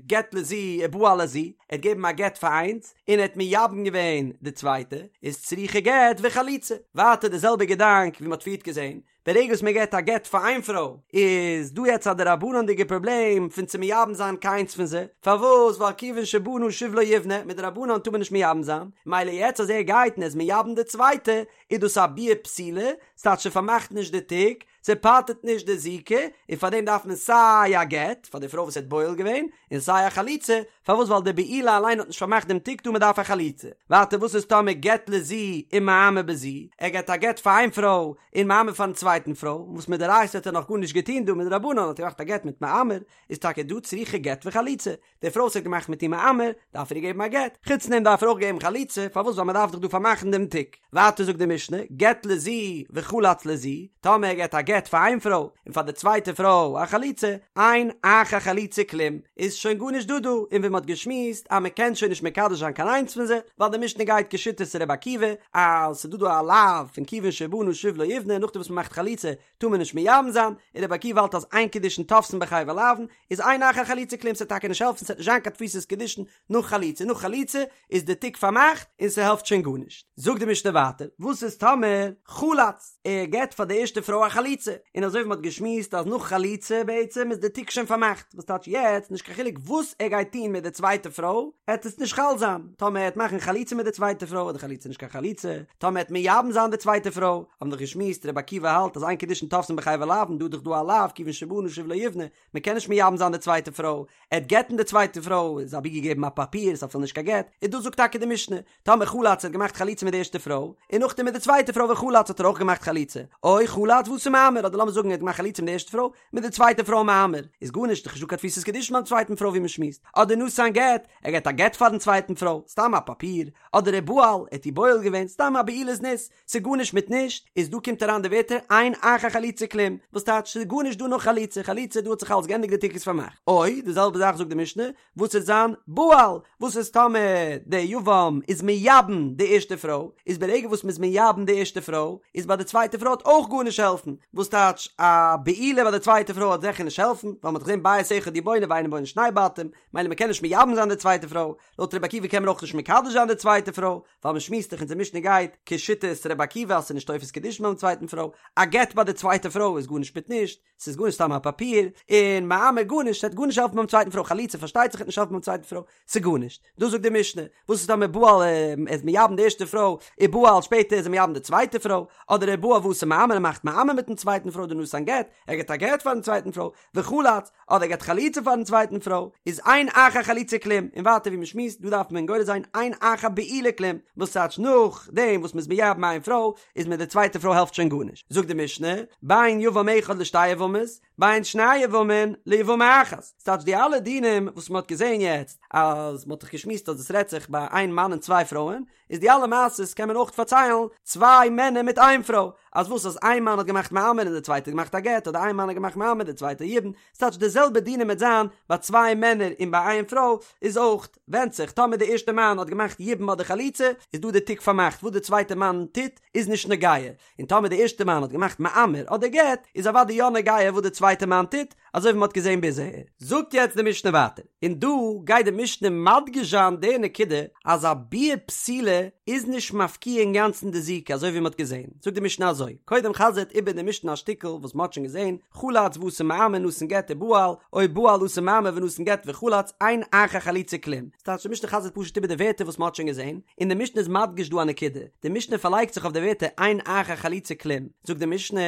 גט לזו ובעל לזו, ער האט געגעבן א גט פאר איינס, און ער האט מייבם געווען די צווייטע, איז צריכה גט וחליצה, ווייטער די זעלבע געדאנק ווי מען האט פריערט געזען, ברגע וואס מען געט א גט פאר איין פרוי איז דא יעצט א דרבנן'דיגע פראבלעם פון צו מייבם זיין קיינס פון זיי, פארוואס ווייל כיוון שבנה שוב לא יבנה, מדרבנן טאר מען נישט מייבם זיין, מילא יעצט אז ער גייט און ער איז מייבם די צווייטע איז דאס א ביאה פסולה, ס'טייטש ס'פארמאכט נישט די תיק, ס'פטר'ט נישט די זיקה, און פאר דעם דארף מען סיי א גט פאר די פרוי וואס ער האט בועל געווען, און סיי א חליצה, פארוואס ווייל די בעילה אליין האט נישט פארמאכט דעם תיק דא מען דארף א חליצה. ווייטער וואס איז טאמער גט לזו ומאמר בזו, ער געט א גט פאר איין פרוי און מאמר פארן צווייטן פרוי, וואס מדאורייתא האט ער נאך גארנישט געטון דא מדרבנן האט ער געמאכט א גט מיט מאמר, איז טאקע דא צריכה גט וחליצה, די פרוי וואס האט געמאכט מיט איר מאמר, דארף ער איר געבן א גט, חוץ דעם דארף ער אויך געבן חליצה, פארוואס ווייל מען דארף דאך דא פארמאכן דעם תיק. ווייטער זאגט די משנה, גט לזו וחלץ לזו, טאמער ער געט א גט פאר איין פרוי און פאר די צווייטע פרוי א חליצה, אין אחר חליצה כלום, איז שוין גארנישט דא דא, און ווי מען האט געשמועסט אז מען קען שוין נישט מקדש זיין קיין איינס פון זיי, ווייל די משנה גייט כשיטת ר' עקיבא, אז ס'איז דא דא א לאו פון כיוון שבנה שוב לא יבנה, נאכדעם וואס מען מאכט חליצה טאר מען נישט מייבם זיין, און רבי עקיבא האלט אז אין קידושין תופסין בחבר לאוין, איז אין אחר חליצה כלום ס'וועט טאקע נישט העלפן ס'וועט נישט זיין קיין תפיסת קידושין נאך חליצה, נאך חליצה איז די תיק פארמאכט און ס'העלפט שוין גארנישט. זאגט די משנה ווייטער, וואס איז טאמער חלץ, ער געבט פאר די ערשטע פרוי א חליצה? חליצה, און אזוי ווי מ'האט געשמועסט אז נאך חליצה בעצם איז די תיק שוין פארמאכט, וואס טייטש יעצט נישט קיין חילוק וואס ער גייט טון מיט די צווייטע פרוי, עט עס נישט חל זיין, טאמער ער עט מאכן חליצה מיט די צווייטע פרוי איז די חליצה נישט קיין חליצה, טאמער עט מייבם זיין די צווייטע פרוי, האבן דאך געשמועסט רבי עקיבא האלט אז אין קידושין תופסין בחייבי לאוין, דא איז דאך דא א לאו כיוון שבנה שוב לא יבנה, מען קען נישט מייבם זיין די צווייטע פרוי, ער עט גט'ן די צווייטע פרוי, איז אבי געגעבן א פאפיר, איז אפילו נישט קיין גט, און דא זאגט טאקע די משנה, טאמער חלץ האט געמאכט חליצה מיט די ערשטע פרוי, און נאכדעם מיט די צווייטע פרוי וחלץ האט ער אויך געמאכט חליצה, או חלץ ואתא מאמר, אדער לאמיר זאגן ער האט געמאכט חליצה מיט די ערשטע פרוי, מיט די צווייטע פרוי מאמר, איז גארנישט, דאך נישטא קיין תפיסת קידושין ביים צווייטן פרוי ווי מען שמועסט, אדער נתן גט, ער געט א גט פארן צווייטן פרוי, סתם א פאפיר, אדער ובעל, ער האט איר בועל געווען, סתם א בעילת זנות, ס'איז גארנישט מיט נישט, איז דא קומט אריין די ווערטער אין אחר חליצה כלום, וואס טייטש ס'איז גארנישט דא נאך חליצה, חליצה דא האט זיך אלס גענדיגט די תיק איז פארמאכט. או, די זעלבע זאך זאגט די משנה, וואס וועט זיין בעל, וואס איז טאמער די יבם איז מייבם די ערשטע פרוי, איז ברגע וואס מ'איז מייבם די ערשטע פרוי, איז ביי די צווייטע פרוי וועט אויך גארנישט העלפן, וואס טייטש א בעילה ביי די צווייטע פרוי וועט זיכער נישט העלפן, ווייל מ'האט געזען בית אחד הוא בונה ואינו בונה שני בתים, מילא מ'קען נישט מייבם זיין די צווייטע פרוי, לויט רבי עקיבא קען מען אויך נישט מקדש זיין די צווייטע פרוי, ווייל מען שמועסט דאך אונזער משנה גייט כשיטת רבי עקיבא אז ס'איז נישט תופס קידושין ביים צווייטן פרוי, א גט ביי די צווייטע פרוי איז גארנישט מיט נישט, ס'איז גארנישט סתם א פאפיר, און מאמר גארנישט, ס'וועט גארנישט העלפן ביים צווייטן פרוי, חליצה פארשטייט זיך וועט נישט העלפן ביים צווייטן פרוי, ס'איז גארנישט. דאס זאגט די משנה, וואס איז טאמער בעל איז מייבם די ערשטע פרוי, ובעל שפעטער איז ער מייבם די צווייטע פרוי, אדער ובעל ואתא מאמר ער מאכט מאמר מיטן צווייטן פרוי אדער נתן גט, ער געט א גט פארן צווייטן פרוי, וחלץ, אדער ער געט חליצה פארן צווייטן פרוי, איז אין אחר חליצה כלום, און ווייטער ווי מ'שמועסט, דא דארף מען גורס זיין אין אחר בעילה כלום, וואס טייטש נאך דעם וואס מ'איז מייבם איין פרוי, איז מיט די צווייטע פרוי העלפט שוין גארנישט. זאגט די משנה, בין יבם אחד לשתי יבמות, בין שני יבמין ליבמה אחת. ס'טייטש די אלע דינים וואס מ'האט געזען יעצט, אז מ'האט דאך געשמועסט אז עס רעדט זיך ביי איין מאן און צוויי פרויען, איז די אלע מעשות קען מען אויך פארציילן צוויי מענער מיט איין פרוי, אז וואס אז איין מאן האט געמאכט מאמר און די צווייטע האט געמאכט א גט, אדער איין מאן האט געמאכט מאמר די צווייטע יבום, ס'טייטש די זעלבע דינים וועט זיין ביי צוויי מענער און ביי איין פרוי, איז אויך ווענדט זיך טאמער די ערשטע מאן האט געמאכט יבום אדער חליצה איז דא די תיק פארמאכט וואס די צווייטע מאן טוט איז נישט נוגע, און טאמער די ערשטע מאן האט געמאכט מאמר אדער גט איז אוודאי יא נוגע וואס די צווייטע מאן טוט, אזוי ווי מ'האט געזען ביז אהער. זאגט יעצט די משנה ווייטער, און דא גייט די משנה מדגיש זיין די נקודה אז א ביאה פסולה איז נישט מפקיע אינגאנצן די זיקה אזוי ווי מ'האט געזען, זאגט די משנה אזוי, קודם חזר'ט איבער די משנה א שטיקל וואס מ'האט שוין געזען, חלץ ואתא מאמר נתן גט ובעל, או בעל ואתא מאמר ונתן גט וחלץ, אין אחר חליצה כלום. ס'טייטש די משנה חזר'ט פשוט איבער די ווערטער וואס מ'האט שוין געזען, און די משנה איז מדגיש דא א נקודה, די משנה פארלייגט זיך אויף די ווערטער אין אחר חליצה כלום, זאגט די משנה,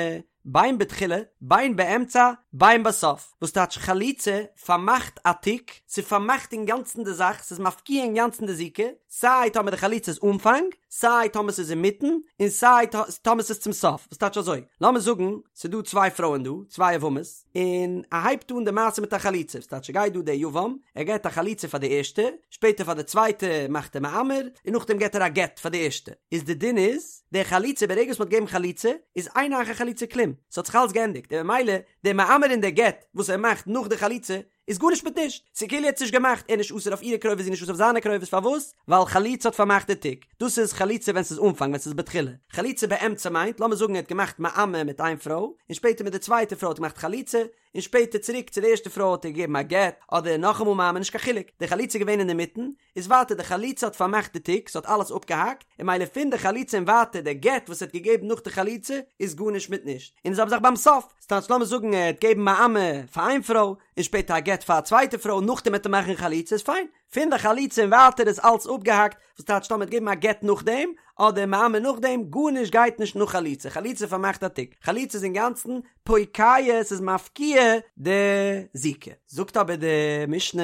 בין בתחילה, בין באמצע, בין בסוף, וואס טייטש חליצה פארמאכט א תיק, ס'פארמאכט אינגאנצן די זאך, ס'איז מפקיע אינגאנצן די זיקה, סיי טאמער די חליצה איז אנפאנג, סיי טאמער ס'איז אינמיטן, און סיי טאמער ס'איז צום סוף, וואס טייטש אזוי, לאמיר זאגן ס'איז דא צוויי פרויען דא, צוויי יבמות, און ער הייבט אן די מעשה מיט א חליצה, וואס טייטש ס'גייט דא דער יבם, ער געט א חליצה פאר די ערשטע, שפעטער פאר די צווייטע מאכט ער מאמר, און נאכדעם געט ער א גט פאר די ערשטע, איז די דין איז, די חליצה ברגע וואס מ'האט געגעבן חליצה איז אין אחר חליצה כלום, ס'האט זיך אלס געענדיגט און ממילא די מאמר און די גט וואס ער מאכט נאך די חליצה איז גארנישט מיט נישט, ס'איז כאילו ער האט עס נישט געמאכט, ער איז נישט אסור אויף אירע קרובות זי איז נישט אסור אויף זיינע קרובות, פארוואס? ווייל חליצה האט פארמאכט די תיק, דאס איז חליצה ווען ס'איז אנפאנג ווען ס'איז בתחילה, חליצה באמצע מיינט לאמיר זאגן ער האט געמאכט מאמר מיט איין פרוי און שפעטער מיט די צווייטע פרוי האט ער געמאכט חליצה, און שפעטער צוריק צו די ערשטע פרוי האט ער געגעבן א גט, אדער נאכאמאל מאמר נישט קיין חילוק, די חליצה איז געווען אינדערמיטן, איז ווייטער די חליצה האט פארמאכט די תיק, ס'האט אלעס אפגעהאקט, און ממילא פון די חליצה און ווייטער די גט וואס ער האט געגעבן נאך די חליצה איז גארנישט מיט נישט, און די זעלבע זאך ביים סוף, ס'טייטש לאמיר זאגן ער האט געגעבן מאמר פאר איין פרוי, און שפעטער א גט פאר א צווייטע פרוי, נאכדעם וועט ער מאכן חליצה איז פיין, פון די חליצה און ווייטער איז אלץ אפגעהאקט, וואס טייטש טאמער ער האט געגעבן א גט נאכדעם, אדער מאמר נאכדעם, גארנישט גייט נישט נאך חליצה, חליצה פארמאכט א תיק, חליצה איז אינגאנצן פוקע, ס'איז מפקיע די זיקה. זאגט אבער די משנה,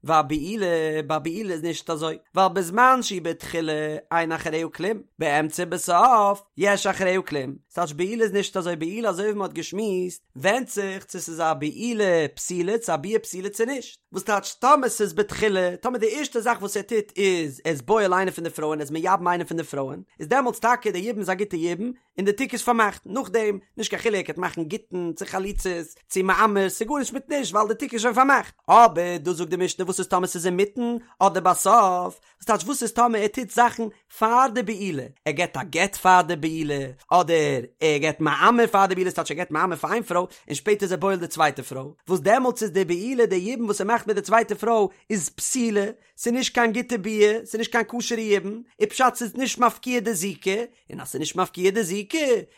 והבעילה, ביי בעילה איז נישט אזוי, ווייל בזמן שהיא בתחילה אין אחריה כלום, באמצע ובסוף יש אחריה כלום, ס'טייטש בעילה איז נישט אזוי, בעילה אזוי ווי מ'האט געשמועסט, ווענדט זיך צו ס'איז א בעילה פסולה צו א ביאה פסולה צו נישט, וואס טייטש טאמער ס'איז בתחילה, טאמער די ערשטע זאך וואס ער טוט איז ער איז בועל איינע פון די פרויען, ער איז מייבם איינע פון די פרויען, איז דעמאלטס טאקע די יבום איז א גוטע יבום, און די תיק איז פארמאכט, נאכדעם, נישט קיין חילוק, ער וועט מאכן גיטין, צו חליצות, צו מאמר, ס'איז גארנישט מיט נישט, ווייל די תיק איז שוין פארמאכט. אבער דא זאגט די משנה וואס איז טאמער ס'איז אינמיטן, אדער בסוף, וואס טייטש וואס איז טאמער ער טוט זאכן פאר די בעילה, ער געבט א גט פאר די בעילה, אדער ער געבט מאמר פאר די בעילה, ס'טייטש ער געבט מאמר פאר איין פרוי, און שפעטער איז ער בועל די צווייטע פרוי, וואס דעמאלטס איז די בעילה, די יבום וואס ער מאכט מיט די צווייטע פרוי, איז פסולה. פסולה, ס'איז נישט קיין גוטע ביאה, ס'איז נישט קיין כשר'ע יבום, איז פשט ס'איז נישט מפקיע די זיקה, און אז ס'איז נישט מפקיע די זיקה,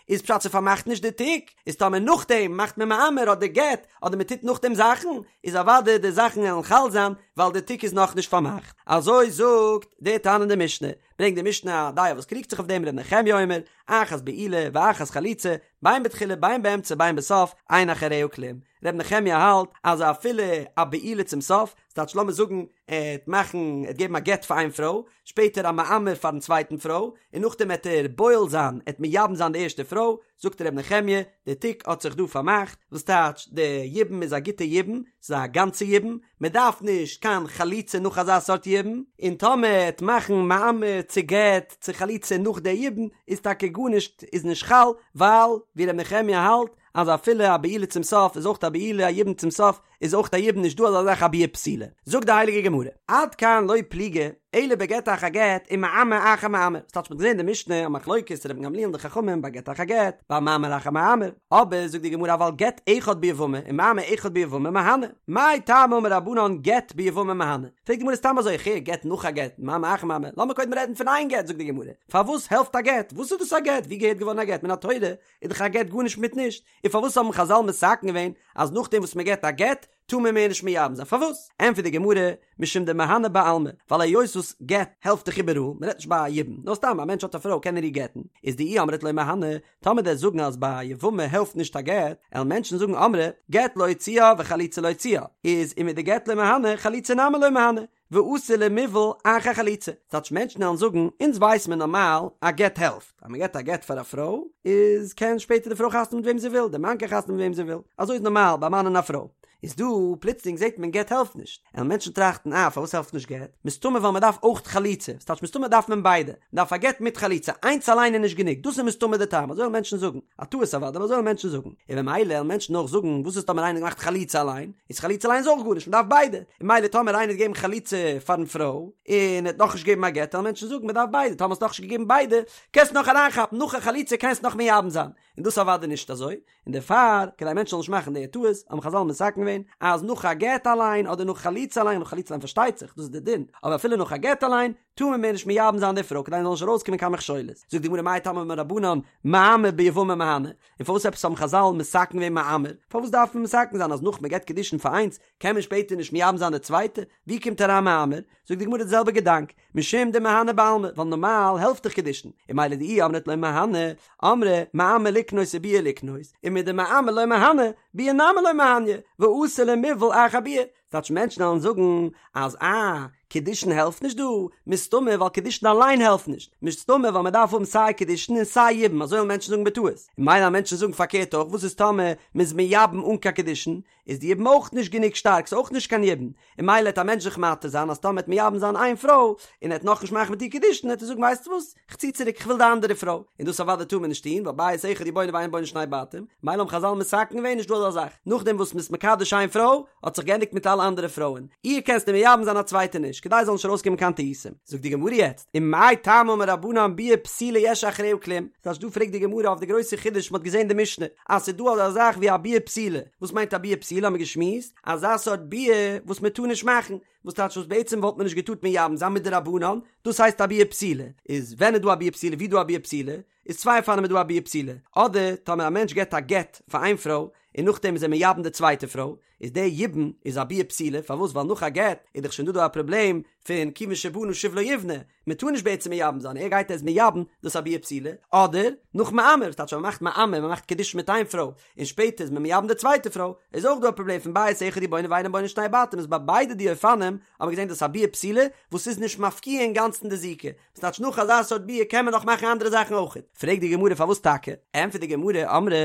איז פשט ס'פארמאכט נישט די תיק, איז טאמער נאכדעם מאכט מען מאמר אדער גט, אדער מ'טוט נאכדעם זאכן, איז אוודאי די זאכן וועלן חל זיין, ווייל די תיק איז נאכנישט פארמאכט. אזוי זאגט די תנא אין די משנה, ברענגט די משנה א דעה וואס קריגט זיך אויף דעם ר' נחמיה אומר, אחת בעילה ואחת חליצה, בין בתחילה בין באמצע בין בסוף, אין אחריה כלום. ר' נחמיה האלט אז אפילו א בעילה צום סוף, ס'טייטש לאמיר זאגן ער העט מאכן, ער העט געבן א גט פאר איין פרוי, שפעטער א מאמר פארן צווייטן פרוי, און נאכדעם העט ער בועל זיין, ער העט מייבם זיין די ערשטע פרוי, זאגט ר' נחמיה, די תיק האט זיך דא פארמאכט, וואס טייטש די יבום איז א גוטע יבום, ס'איז א גאנצע יבום, מען דארף נישט קיין חליצה נאך אזא סארט יבום, און טאמער ער העט מאכן מאמר צו גט צו חליצה נאך די יבום, איז טאקע גארנישט איז נישט חל, ווייל ווי ר' נחמיה האלט אז אפילו א בעילה צום סוף איז אויך א בעילה, א יבום צום סוף איז אויך א יבום נישט דא אזא זאך א ביאה פסולה. זאגט די הייליגע גמרא, עד כאן לא פליגי אלא בגט אחר גט ומאמר אחר מאמר, ס'טייטש מ'האט געזען די משנה א מחלוקת רבן גמליאל און די חכמים ביי גט אחר גט, ביי מאמר אחר מאמר, אבער זאגט די גמרא אבל גט אחד ביבמה ומאמר אחד ביבמה מהני, מאי טעמא אמור רבנן גט ביבמה מהני, פרעגט די גמרא סתם אזוי איך הער גט נאך א גט, מאמר אחר מאמר, לאמיר קודם רעדן פון איין גט זאגט די גמרא, פארוואס העלפט א גט, וואס איז דאס א גט, ווי געהערט געווארן א גט, מן התורה איז דאך א גט גארנישט מיט נישט, און פארוואס האבן חזל מתקן געווען אז נאכדעם וואס מען געבט א גט טאר מען מער נישט מייבם זיין? פארוואס? ענטפערט די גמרא, משום דמהני בעלמא, ווייל היות וואס גט העלפט דאך איבעראל, מען רעדט נישט ביי א יבום, נאר סתם א מענטש האט א פרוי קען ער איר גט'ן, איז דאי אמרת לא מהני, טאמער דו'סט זאגן אז ביי א יבמה העלפט נישט א גט, עלן מענטשן זאגן אמרי, גט לא הוציאה וחליצה לא הוציאה, איז ומדגט לא מהני חליצה נמי לא מהני, ואתי למיבעל אחר חליצה, ס'טייטש מענטשן וועלן זאגן, אונז ווייס מען נארמאל א גט העלפט, אז מען געבט א גט פאר א פרוי, איז קען שפעטער די פרוי חתונה מיט וועם זי וויל, די מאן קען חתונה מיט וועם זי וויל, אזוי איז נארמאל ביי א מאן און א פרוי. איז דא פלוצלינג זעט מען גט העלפט נישט, עלן מענטשן טראכטן אה פארוואס העלפט נישט גט, מסתמא ווייל מען דארף אויך חליצה, ס'טייטש מסתמא דארף מען ביידע, מען דארף א גט מיט חליצה, איינס אליין איז נישט גענוג, דאס איז מסתמא די טעם, אזוי וועלן מענטשן זאגן. א טעות אוודאי, אבער אזוי וועלן מענטשן זאגן. און במילא וועלן מענטשן אויך זאגן, וואס איז טאמער איינער האט געמאכט חליצה אליין? איז חליצה אליין איז אויך גארנישט, מען דארף ביידע. און במילא טאמער איינער האט געגעבן חליצה פארן פרוי, און ער האט נאכנישט געגעבן א גט, וועלן מענטשן זאגן, מען דארף ביידע, טאמער האסט נאכנישט געגעבן ביידע, קענסט נאך אריינכאפן, נאך א חליצה קענסט נאך מייבם זיין. און דאס איז אוודאי נישט אזוי. און דערפאר, כדי מענטשן זאלן נישט מאכן די טעות, האבן חזל מתקן געווען, אז נאך א גט אליין, אדער נאך חליצה אליין, נאך חליצה אליין פארשטייט זיך, דאס איז די דין, אבער אפילו נאך א גט אליין, טאר מען מער נישט מייבם זיין די פרוי כדי ס'זאל נישט ארויסקומען קיין מכשולות. זאגט די גמרא מאי טעמא אמור רבנן מאמר ביבמה מהני, און פארוואס עפעס האבן חזל מתקן געווען מאמר? פארוואס דארף מען מתקן זיין אז נאך מען געבט קידושין פאר איינס קען מען שפעטער נישט מייבם זיין די צווייטע? ווי קומט אריין מאמר? זאגט די גמרא די זעלבע געדאנק, משום דמהני בעלמא, ווייל נארמאל העלפט דאך קידושין, און ממילא דאי אמרת לא מהני, אמרי מאמר לקנות וביאה לקנות, ומדמאמר לא מהני, ביאה נמי לא מהניא, ואתי למיבעל אחר ביאה, ס'טייטש מענטשן וועלן זאגן אז אה, קידושין העלפט נישט דא, מסתמא ווייל קידושין אליין העלפט נישט, מסתמא ווייל מ'דארף האבן סיי קידושין און סיי יבום, אזוי וועלן מענטשן זאגן בטעות. און ממילא וועלן מענטשן זאגן פארקערט אויך, וואס איז טאמער מ'איז מייבם אן קיין קידושין, איז די יבום אויך נישט גענוג שטארק, ס'איז אויך נישט קיין יבום, און ממילא וועט א מענטש זיך מתיר זיין אז טאמער ער וועט מייבם זיין איין פרוי, און ער וועט נאכנישט מאכן מיט איר קידושין, וועט ער זאגן ווייסטו וואס, כ'צי צוריק כ'וויל די אנדערע פרוי, און דאס אוודאי טאר מען נישט טון, ווייל בית אחד הוא בונה ואין בונה שני בתים, ממילא האבן חזל מתקן געווען נישט דא אזא זאך, נאכדעם וואס מ'איז מקדש איין פרוי, האט זיך געענדיגט מיט אלע אנדערע פרויען, איר קענסטו מייבם זיין א צווייטע נישט, כדי ס'זאל נישט ארויסקומען קיין טעותים. זאגט די גמרא יעצט, ומאי טעמא אמור רבנן ביאה פסולה יש אחריה כלום, ס'טייטש דא פרעגט די גמרא אויף די גרויסע חידוש מ'האט געזען די משנה, אז ס'איז דא אזא זאך ווי א ביאה פסולה, וואס מיינט א ביאה פסולה האבן מיר געשמועסט, אזא סארט ביאה וואס מ'טאר נישט מאכן, וואס טייטש וואס בעצם וואלט מען נישט געטארט מייבם זיין מדרבנן, דאס הייסט א ביאה פסולה, איז ווען איז דא א ביאה פסולה ווי איז דא א ביאה פסולה, איז צוויי אופנים איז דא א ביאה פסולה, אדער טאמער א מענטש געבט א גט פאר איין פרוי און נאכדעם איז ער מייבם די צווייטע פרוי, איז די יבום איז א ביאה פסולה, פארוואס ווייל נאך א גט איז דאך שוין דא דא א פראבלעם פון כיוון שבנה שוב לא יבנה, מען טאר נישט בעצם מייבם זיין, ער גייט ער איז מייבם, דאס איז א ביאה פסולה, אדער נאך מאמר, ס'טייטש אז מען מאכט מאמר, מען מאכט קידושין מיט איין פרוי, און שפעטער איז מען מייבם די צווייטע פרוי, איז אויך דא א פראבלעם פון בית אחד הוא בונה ואינו בונה שני בתים, איז ביי ביידע די אופנים האבן מיר געזען דאס א ביאה פסולה וואס איז נישט מפקיע אינגאנצן די זיקה, ס'טייטש נאך אזא סארט ביאה קען מען נאך מאכן אנדערע זאכן אויכעט, פרעגט די גמרא פארוואס טאקע, ענטפערט די גמרא, אמרי,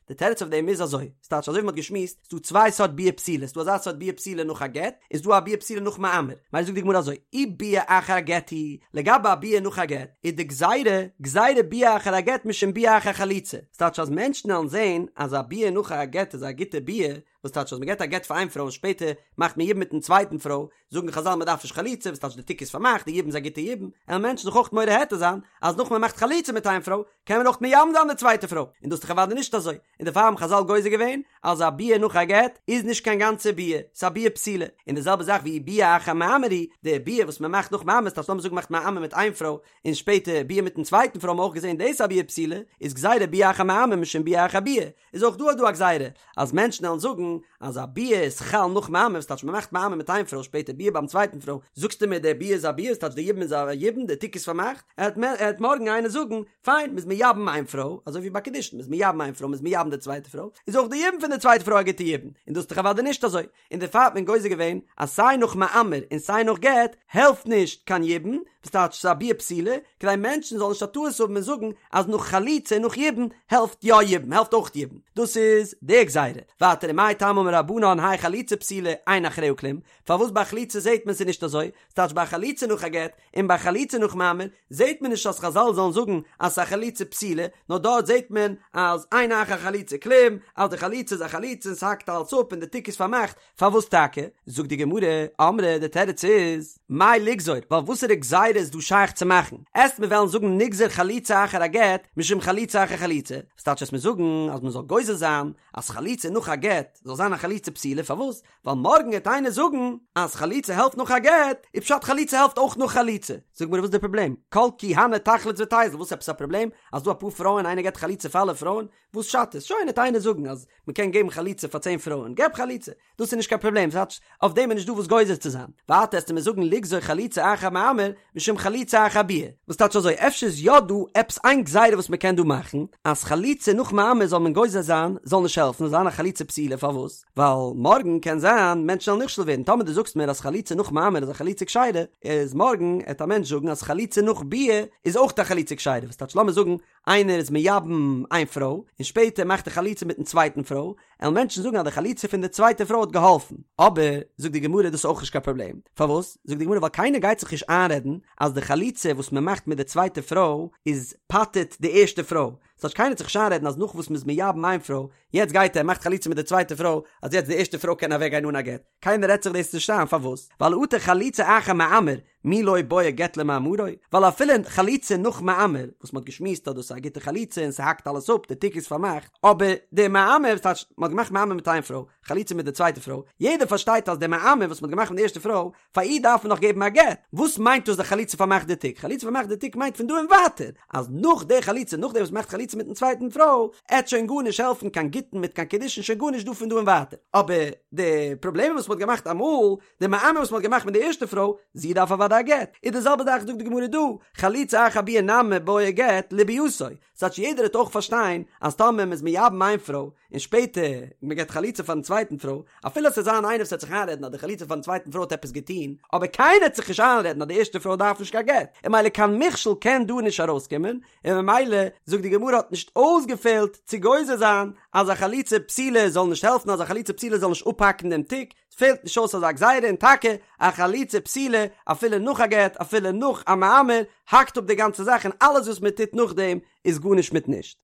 די תירוץ אויף דעם איז אזוי, ס'טייטש אזוי ווי מ'האט געשמועסט, ס'דא צוויי סארט ביאה פסולה, ס'דא אזא סארט ביאה פסולה נאך א גט, און ס'דא א ביאה פסולה נאך מאמר, ממילא זאגט די גמרא אזוי, אי ביאה אחר הגט היא, לגבי א ביאה נאך א גט, איז די גזירה, גזירה ביאה אחר הגט משום ביאה אחר חליצה, ס'טייטש אז מענטשן וועלן זען אז א ביאה נאך א גט איז א גוטע ביאה, וואס טייטש אז מען געבט א גט פאר איין פרוי און שפעטער מאכט מען יבום מיטן צווייטן פרוי, זאגן חזל מען דארף נישט חליצה, וואס טייטש די תיק איז פארמאכט, די יבום איז א גוטע יבום, עלן מענטשן זיך אויך מורה היתר זיין אז נאך מען מאכט חליצה מיט איין פרוי, קען מען אויך מייבם זיין די צווייטע פרוי, און דאס איז דאך אוודאי נישט אזוי, און דערפאר האבן חזל גוזר געווען אז א ביאה נאך א גט איז נישט קיין גאנצע ביאה, ס'איז א ביאה פסולה, און די זעלבע זאך ואי ביאה אחר מאמר היא, די ביאה וואס מען מאכט נאך מאמר, ס'טייטש לאמיר זאגן מ'מאכט מאמר מיט איין פרוי, און שפעטער ביאה מיטן צווייטן פרוי האבן מיר אויך געזען דאס א ביאה פסולה, איז גזירה ביאה אחר מאמר משום ביאה אחר ביאה, איז אויך דא דא א גזירה אז מענטשן וועלן זאגן אז א ביאה איז חל נאך מאמר, וואס טייטש מ'מאכט מאמר מיט איין פרוי שפעטער ביאה ביים צווייטן פרוי, זאגסטו מיר די ביאה איז א ביאה, ס'טייטש די יבום איז א יבום, די תיק איז פארמאכט, עט מארגן איינער זאגן, פיין, מ'איז מייבם איין פרוי, אזוי ווי ביי קידושין, מ'איז מייבם איין פרוי, מ'איז מייבם די צווייטע פרוי, איז אויך די יבום פון די צווייטע פרוי א גוטע יבום, און דאס איז דאך אוודאי נישט אזוי, און דערפאר האט מען גוזר געווען אז סיי נאך מאמר און סיי נאך גט העלפט נישט קיין יבום, וואס טייטש ס'איז א ביאה פסולה, כדי מענטשן זאלן נישט א טעות האבן און זאגן אז נאך חליצה און נאך יבום העלפט יא יבום, העלפט אויך יבום. דאס איז די גזירה. ווייטער ומאי טעמא אמור רבנן האי חליצה פסולה אין אחריה כלום, פארוואס ביי חליצה זעט מען ס'איז נישט אזוי, ס'טייטש ביי חליצה נאך א גט און ביי חליצה נאך מאמר זעט מען נישט אז חזל זאלן זאגן אז ס'איז א חליצה פסולה, נאר דארט זעט מען אז אין אחר חליצה כלום, אז די חליצה איז א חליצה און ס'האקט אלץ אפ און די תיק איז פארמאכט, פארוואס טאקע? זאגט די גמרא, אמרי די תירוץ איז, מאי לגזור, ווייל וואסערע גזירה איז דא שייך צו מאכן? עסט מיר וועלן זאגן נגזור חליצה אחר הגט משום חליצה אחר חליצה, וואס טייטש עסט מיר זאגן אז מ'זאל גוזר זיין אז חליצה נאך א גט זאל זיין א חליצה פסולה, פארוואס? ווייל מארגן העט איינער זאגן אז חליצה העלפט נאך א גט, איז פשט חליצה העלפט אויך נאך חליצה. זאג מיר וואס איז די פראבלעם? כל כי הני תחלוץ ותיזיל, וואס עפעס א פראבלעם אז דא אפאר פרויען איינער געט חליצה פאר אלע פרויען? וואס שאדט עס? שוין העט איינער זאגן אז מען קען געבן חליצה פאר צען פרויען, געב חליצה, דאס איז נישט קיין פראבלעם, ס'טייטש אויף דעם איז נישט דא וואס גוזר צו זיין. ווייטער עסטו מיר זאגן לגזור חליצה אחר מאמר משום חליצה אחר ביאה, וואס טייטש אזוי אפשר איז יא דא עפעס איין גזירה וואס מען קען דא מאכן אז חליצה נאך מאמר זאל מען גוזר זיין זאל נישט העלפן זאל זיין א חליצה פסולה פארוואס? ווייל מארגן קען זיין מענטשן וועלן נכשל ווערן, טאמער דו זאגסט מיר אז חליצה נאך מאמר איז א חליצה כשרה, איז מארגן עט א מענטש זאגן אז חליצה נאך ביאה איז אויך א חליצה כשרה, וואס טייטש לאמיר זאגן איינער איז מייבם איין פרוי און שפעטער מאכט ער חליצה מיטן צווייטן פרוי, עלן מענטשן זאגן אז די חליצה פון די צווייטע פרוי האט געהאלפן, אבער זאגט די גמרא דאס איז אויך נישט קיין פראבלעם, פארוואס? זאגט די גמרא ווייל קיינער גייט זיך נישט איינרעדן אז די חליצה וואס מען מאכט מיט די צווייטע פרוי איז פטר'ט די ערשטע פרוי, ס'טייטש קיינער עט זיך נישט איינרעדן אז נאך וואס מ'איז מייבם איין פרוי יעצט גייט ער מאכט חליצה מיט די צווייטע פרוי אז יעצט די ערשטע פרוי קען אוועק גיין אן א גט, קיינער רעדט זיך דאס נישט איין, פארוואס? ווייל אטו חליצה אחר מאמר מי לא בעי גט למאמרו, ווייל אפילו חליצה נאך מאמר, וואס מ'האט געשמועסט אז דאס איז א גוטע חליצה און ס'האקט אלעס אפ, די תיק איז פארמאכט, אבער די מאמר, ס'טייטש מ'האט געמאכט מאמר מיט איין פרוי, חליצה מיט די צווייטע פרוי, יעדער פארשטייט אז די מאמר וואס מ'האט געמאכט מיט די ערשטע פרוי, פאר איר דארף מען נאך געבן א גט, וואס מיינט דאס די חליצה פארמאכט די תיק? חליצה פארמאכט די תיק מיינט פון דא און ווייטער, אז נאך די חליצה, נאכדעם וואס מ'מאכט חליצה מיטן צווייטן פרוי, עט שוין גארנישט העלפן קיין גיטין מיט קיין קידושין שוין גארנישט דא פון דא און ווייטער, אבער די פראבלעמען וואס מ'האט געמאכט אמאל, די מאמר וואס מ'האט געמאכט מיט די ערשטע פרוי, זי דארף אוודאי א גט, איז די זעלבע זאך זאגט די גמרא דא, חליצה אחר ביאה נמי בעיא גט לביאתו, ס'טייטש יעדער וועט אויך פארשטיין אז טאמער מ'איז מייבם איין פרוי, און שפעטער מען געבט חליצה פארן צווייטן פרוי, אפילו עס וועט זיין איינער וואס וועט זיך איינרעדן אז די חליצה פארן צווייטן פרוי האט עפעס געטון, אבער קיינער וועט זיך נישט איינרעדן אז די ערשטע פרוי דארף נישט קיין גט, און ממילא קיין מכשול קען דא נישט ארויסקומען, און ממילא זאגט די גמרא האט נישט אויסגעפעלט צו גוזר זיין אז א חליצה פסולה זאל נישט העלפן אז א חליצה פסולה זאל נישט אפהאקן דעם תיק, פעלט נישט אויס אזא גזירה און טאקע א חליצה פסולה אפילו נאך א גט אפילו נאך א מאמר האקט אפ די גאנצע זאך און אלעס וואס מען טוט נאכדעם איז גארנישט מיט נישט.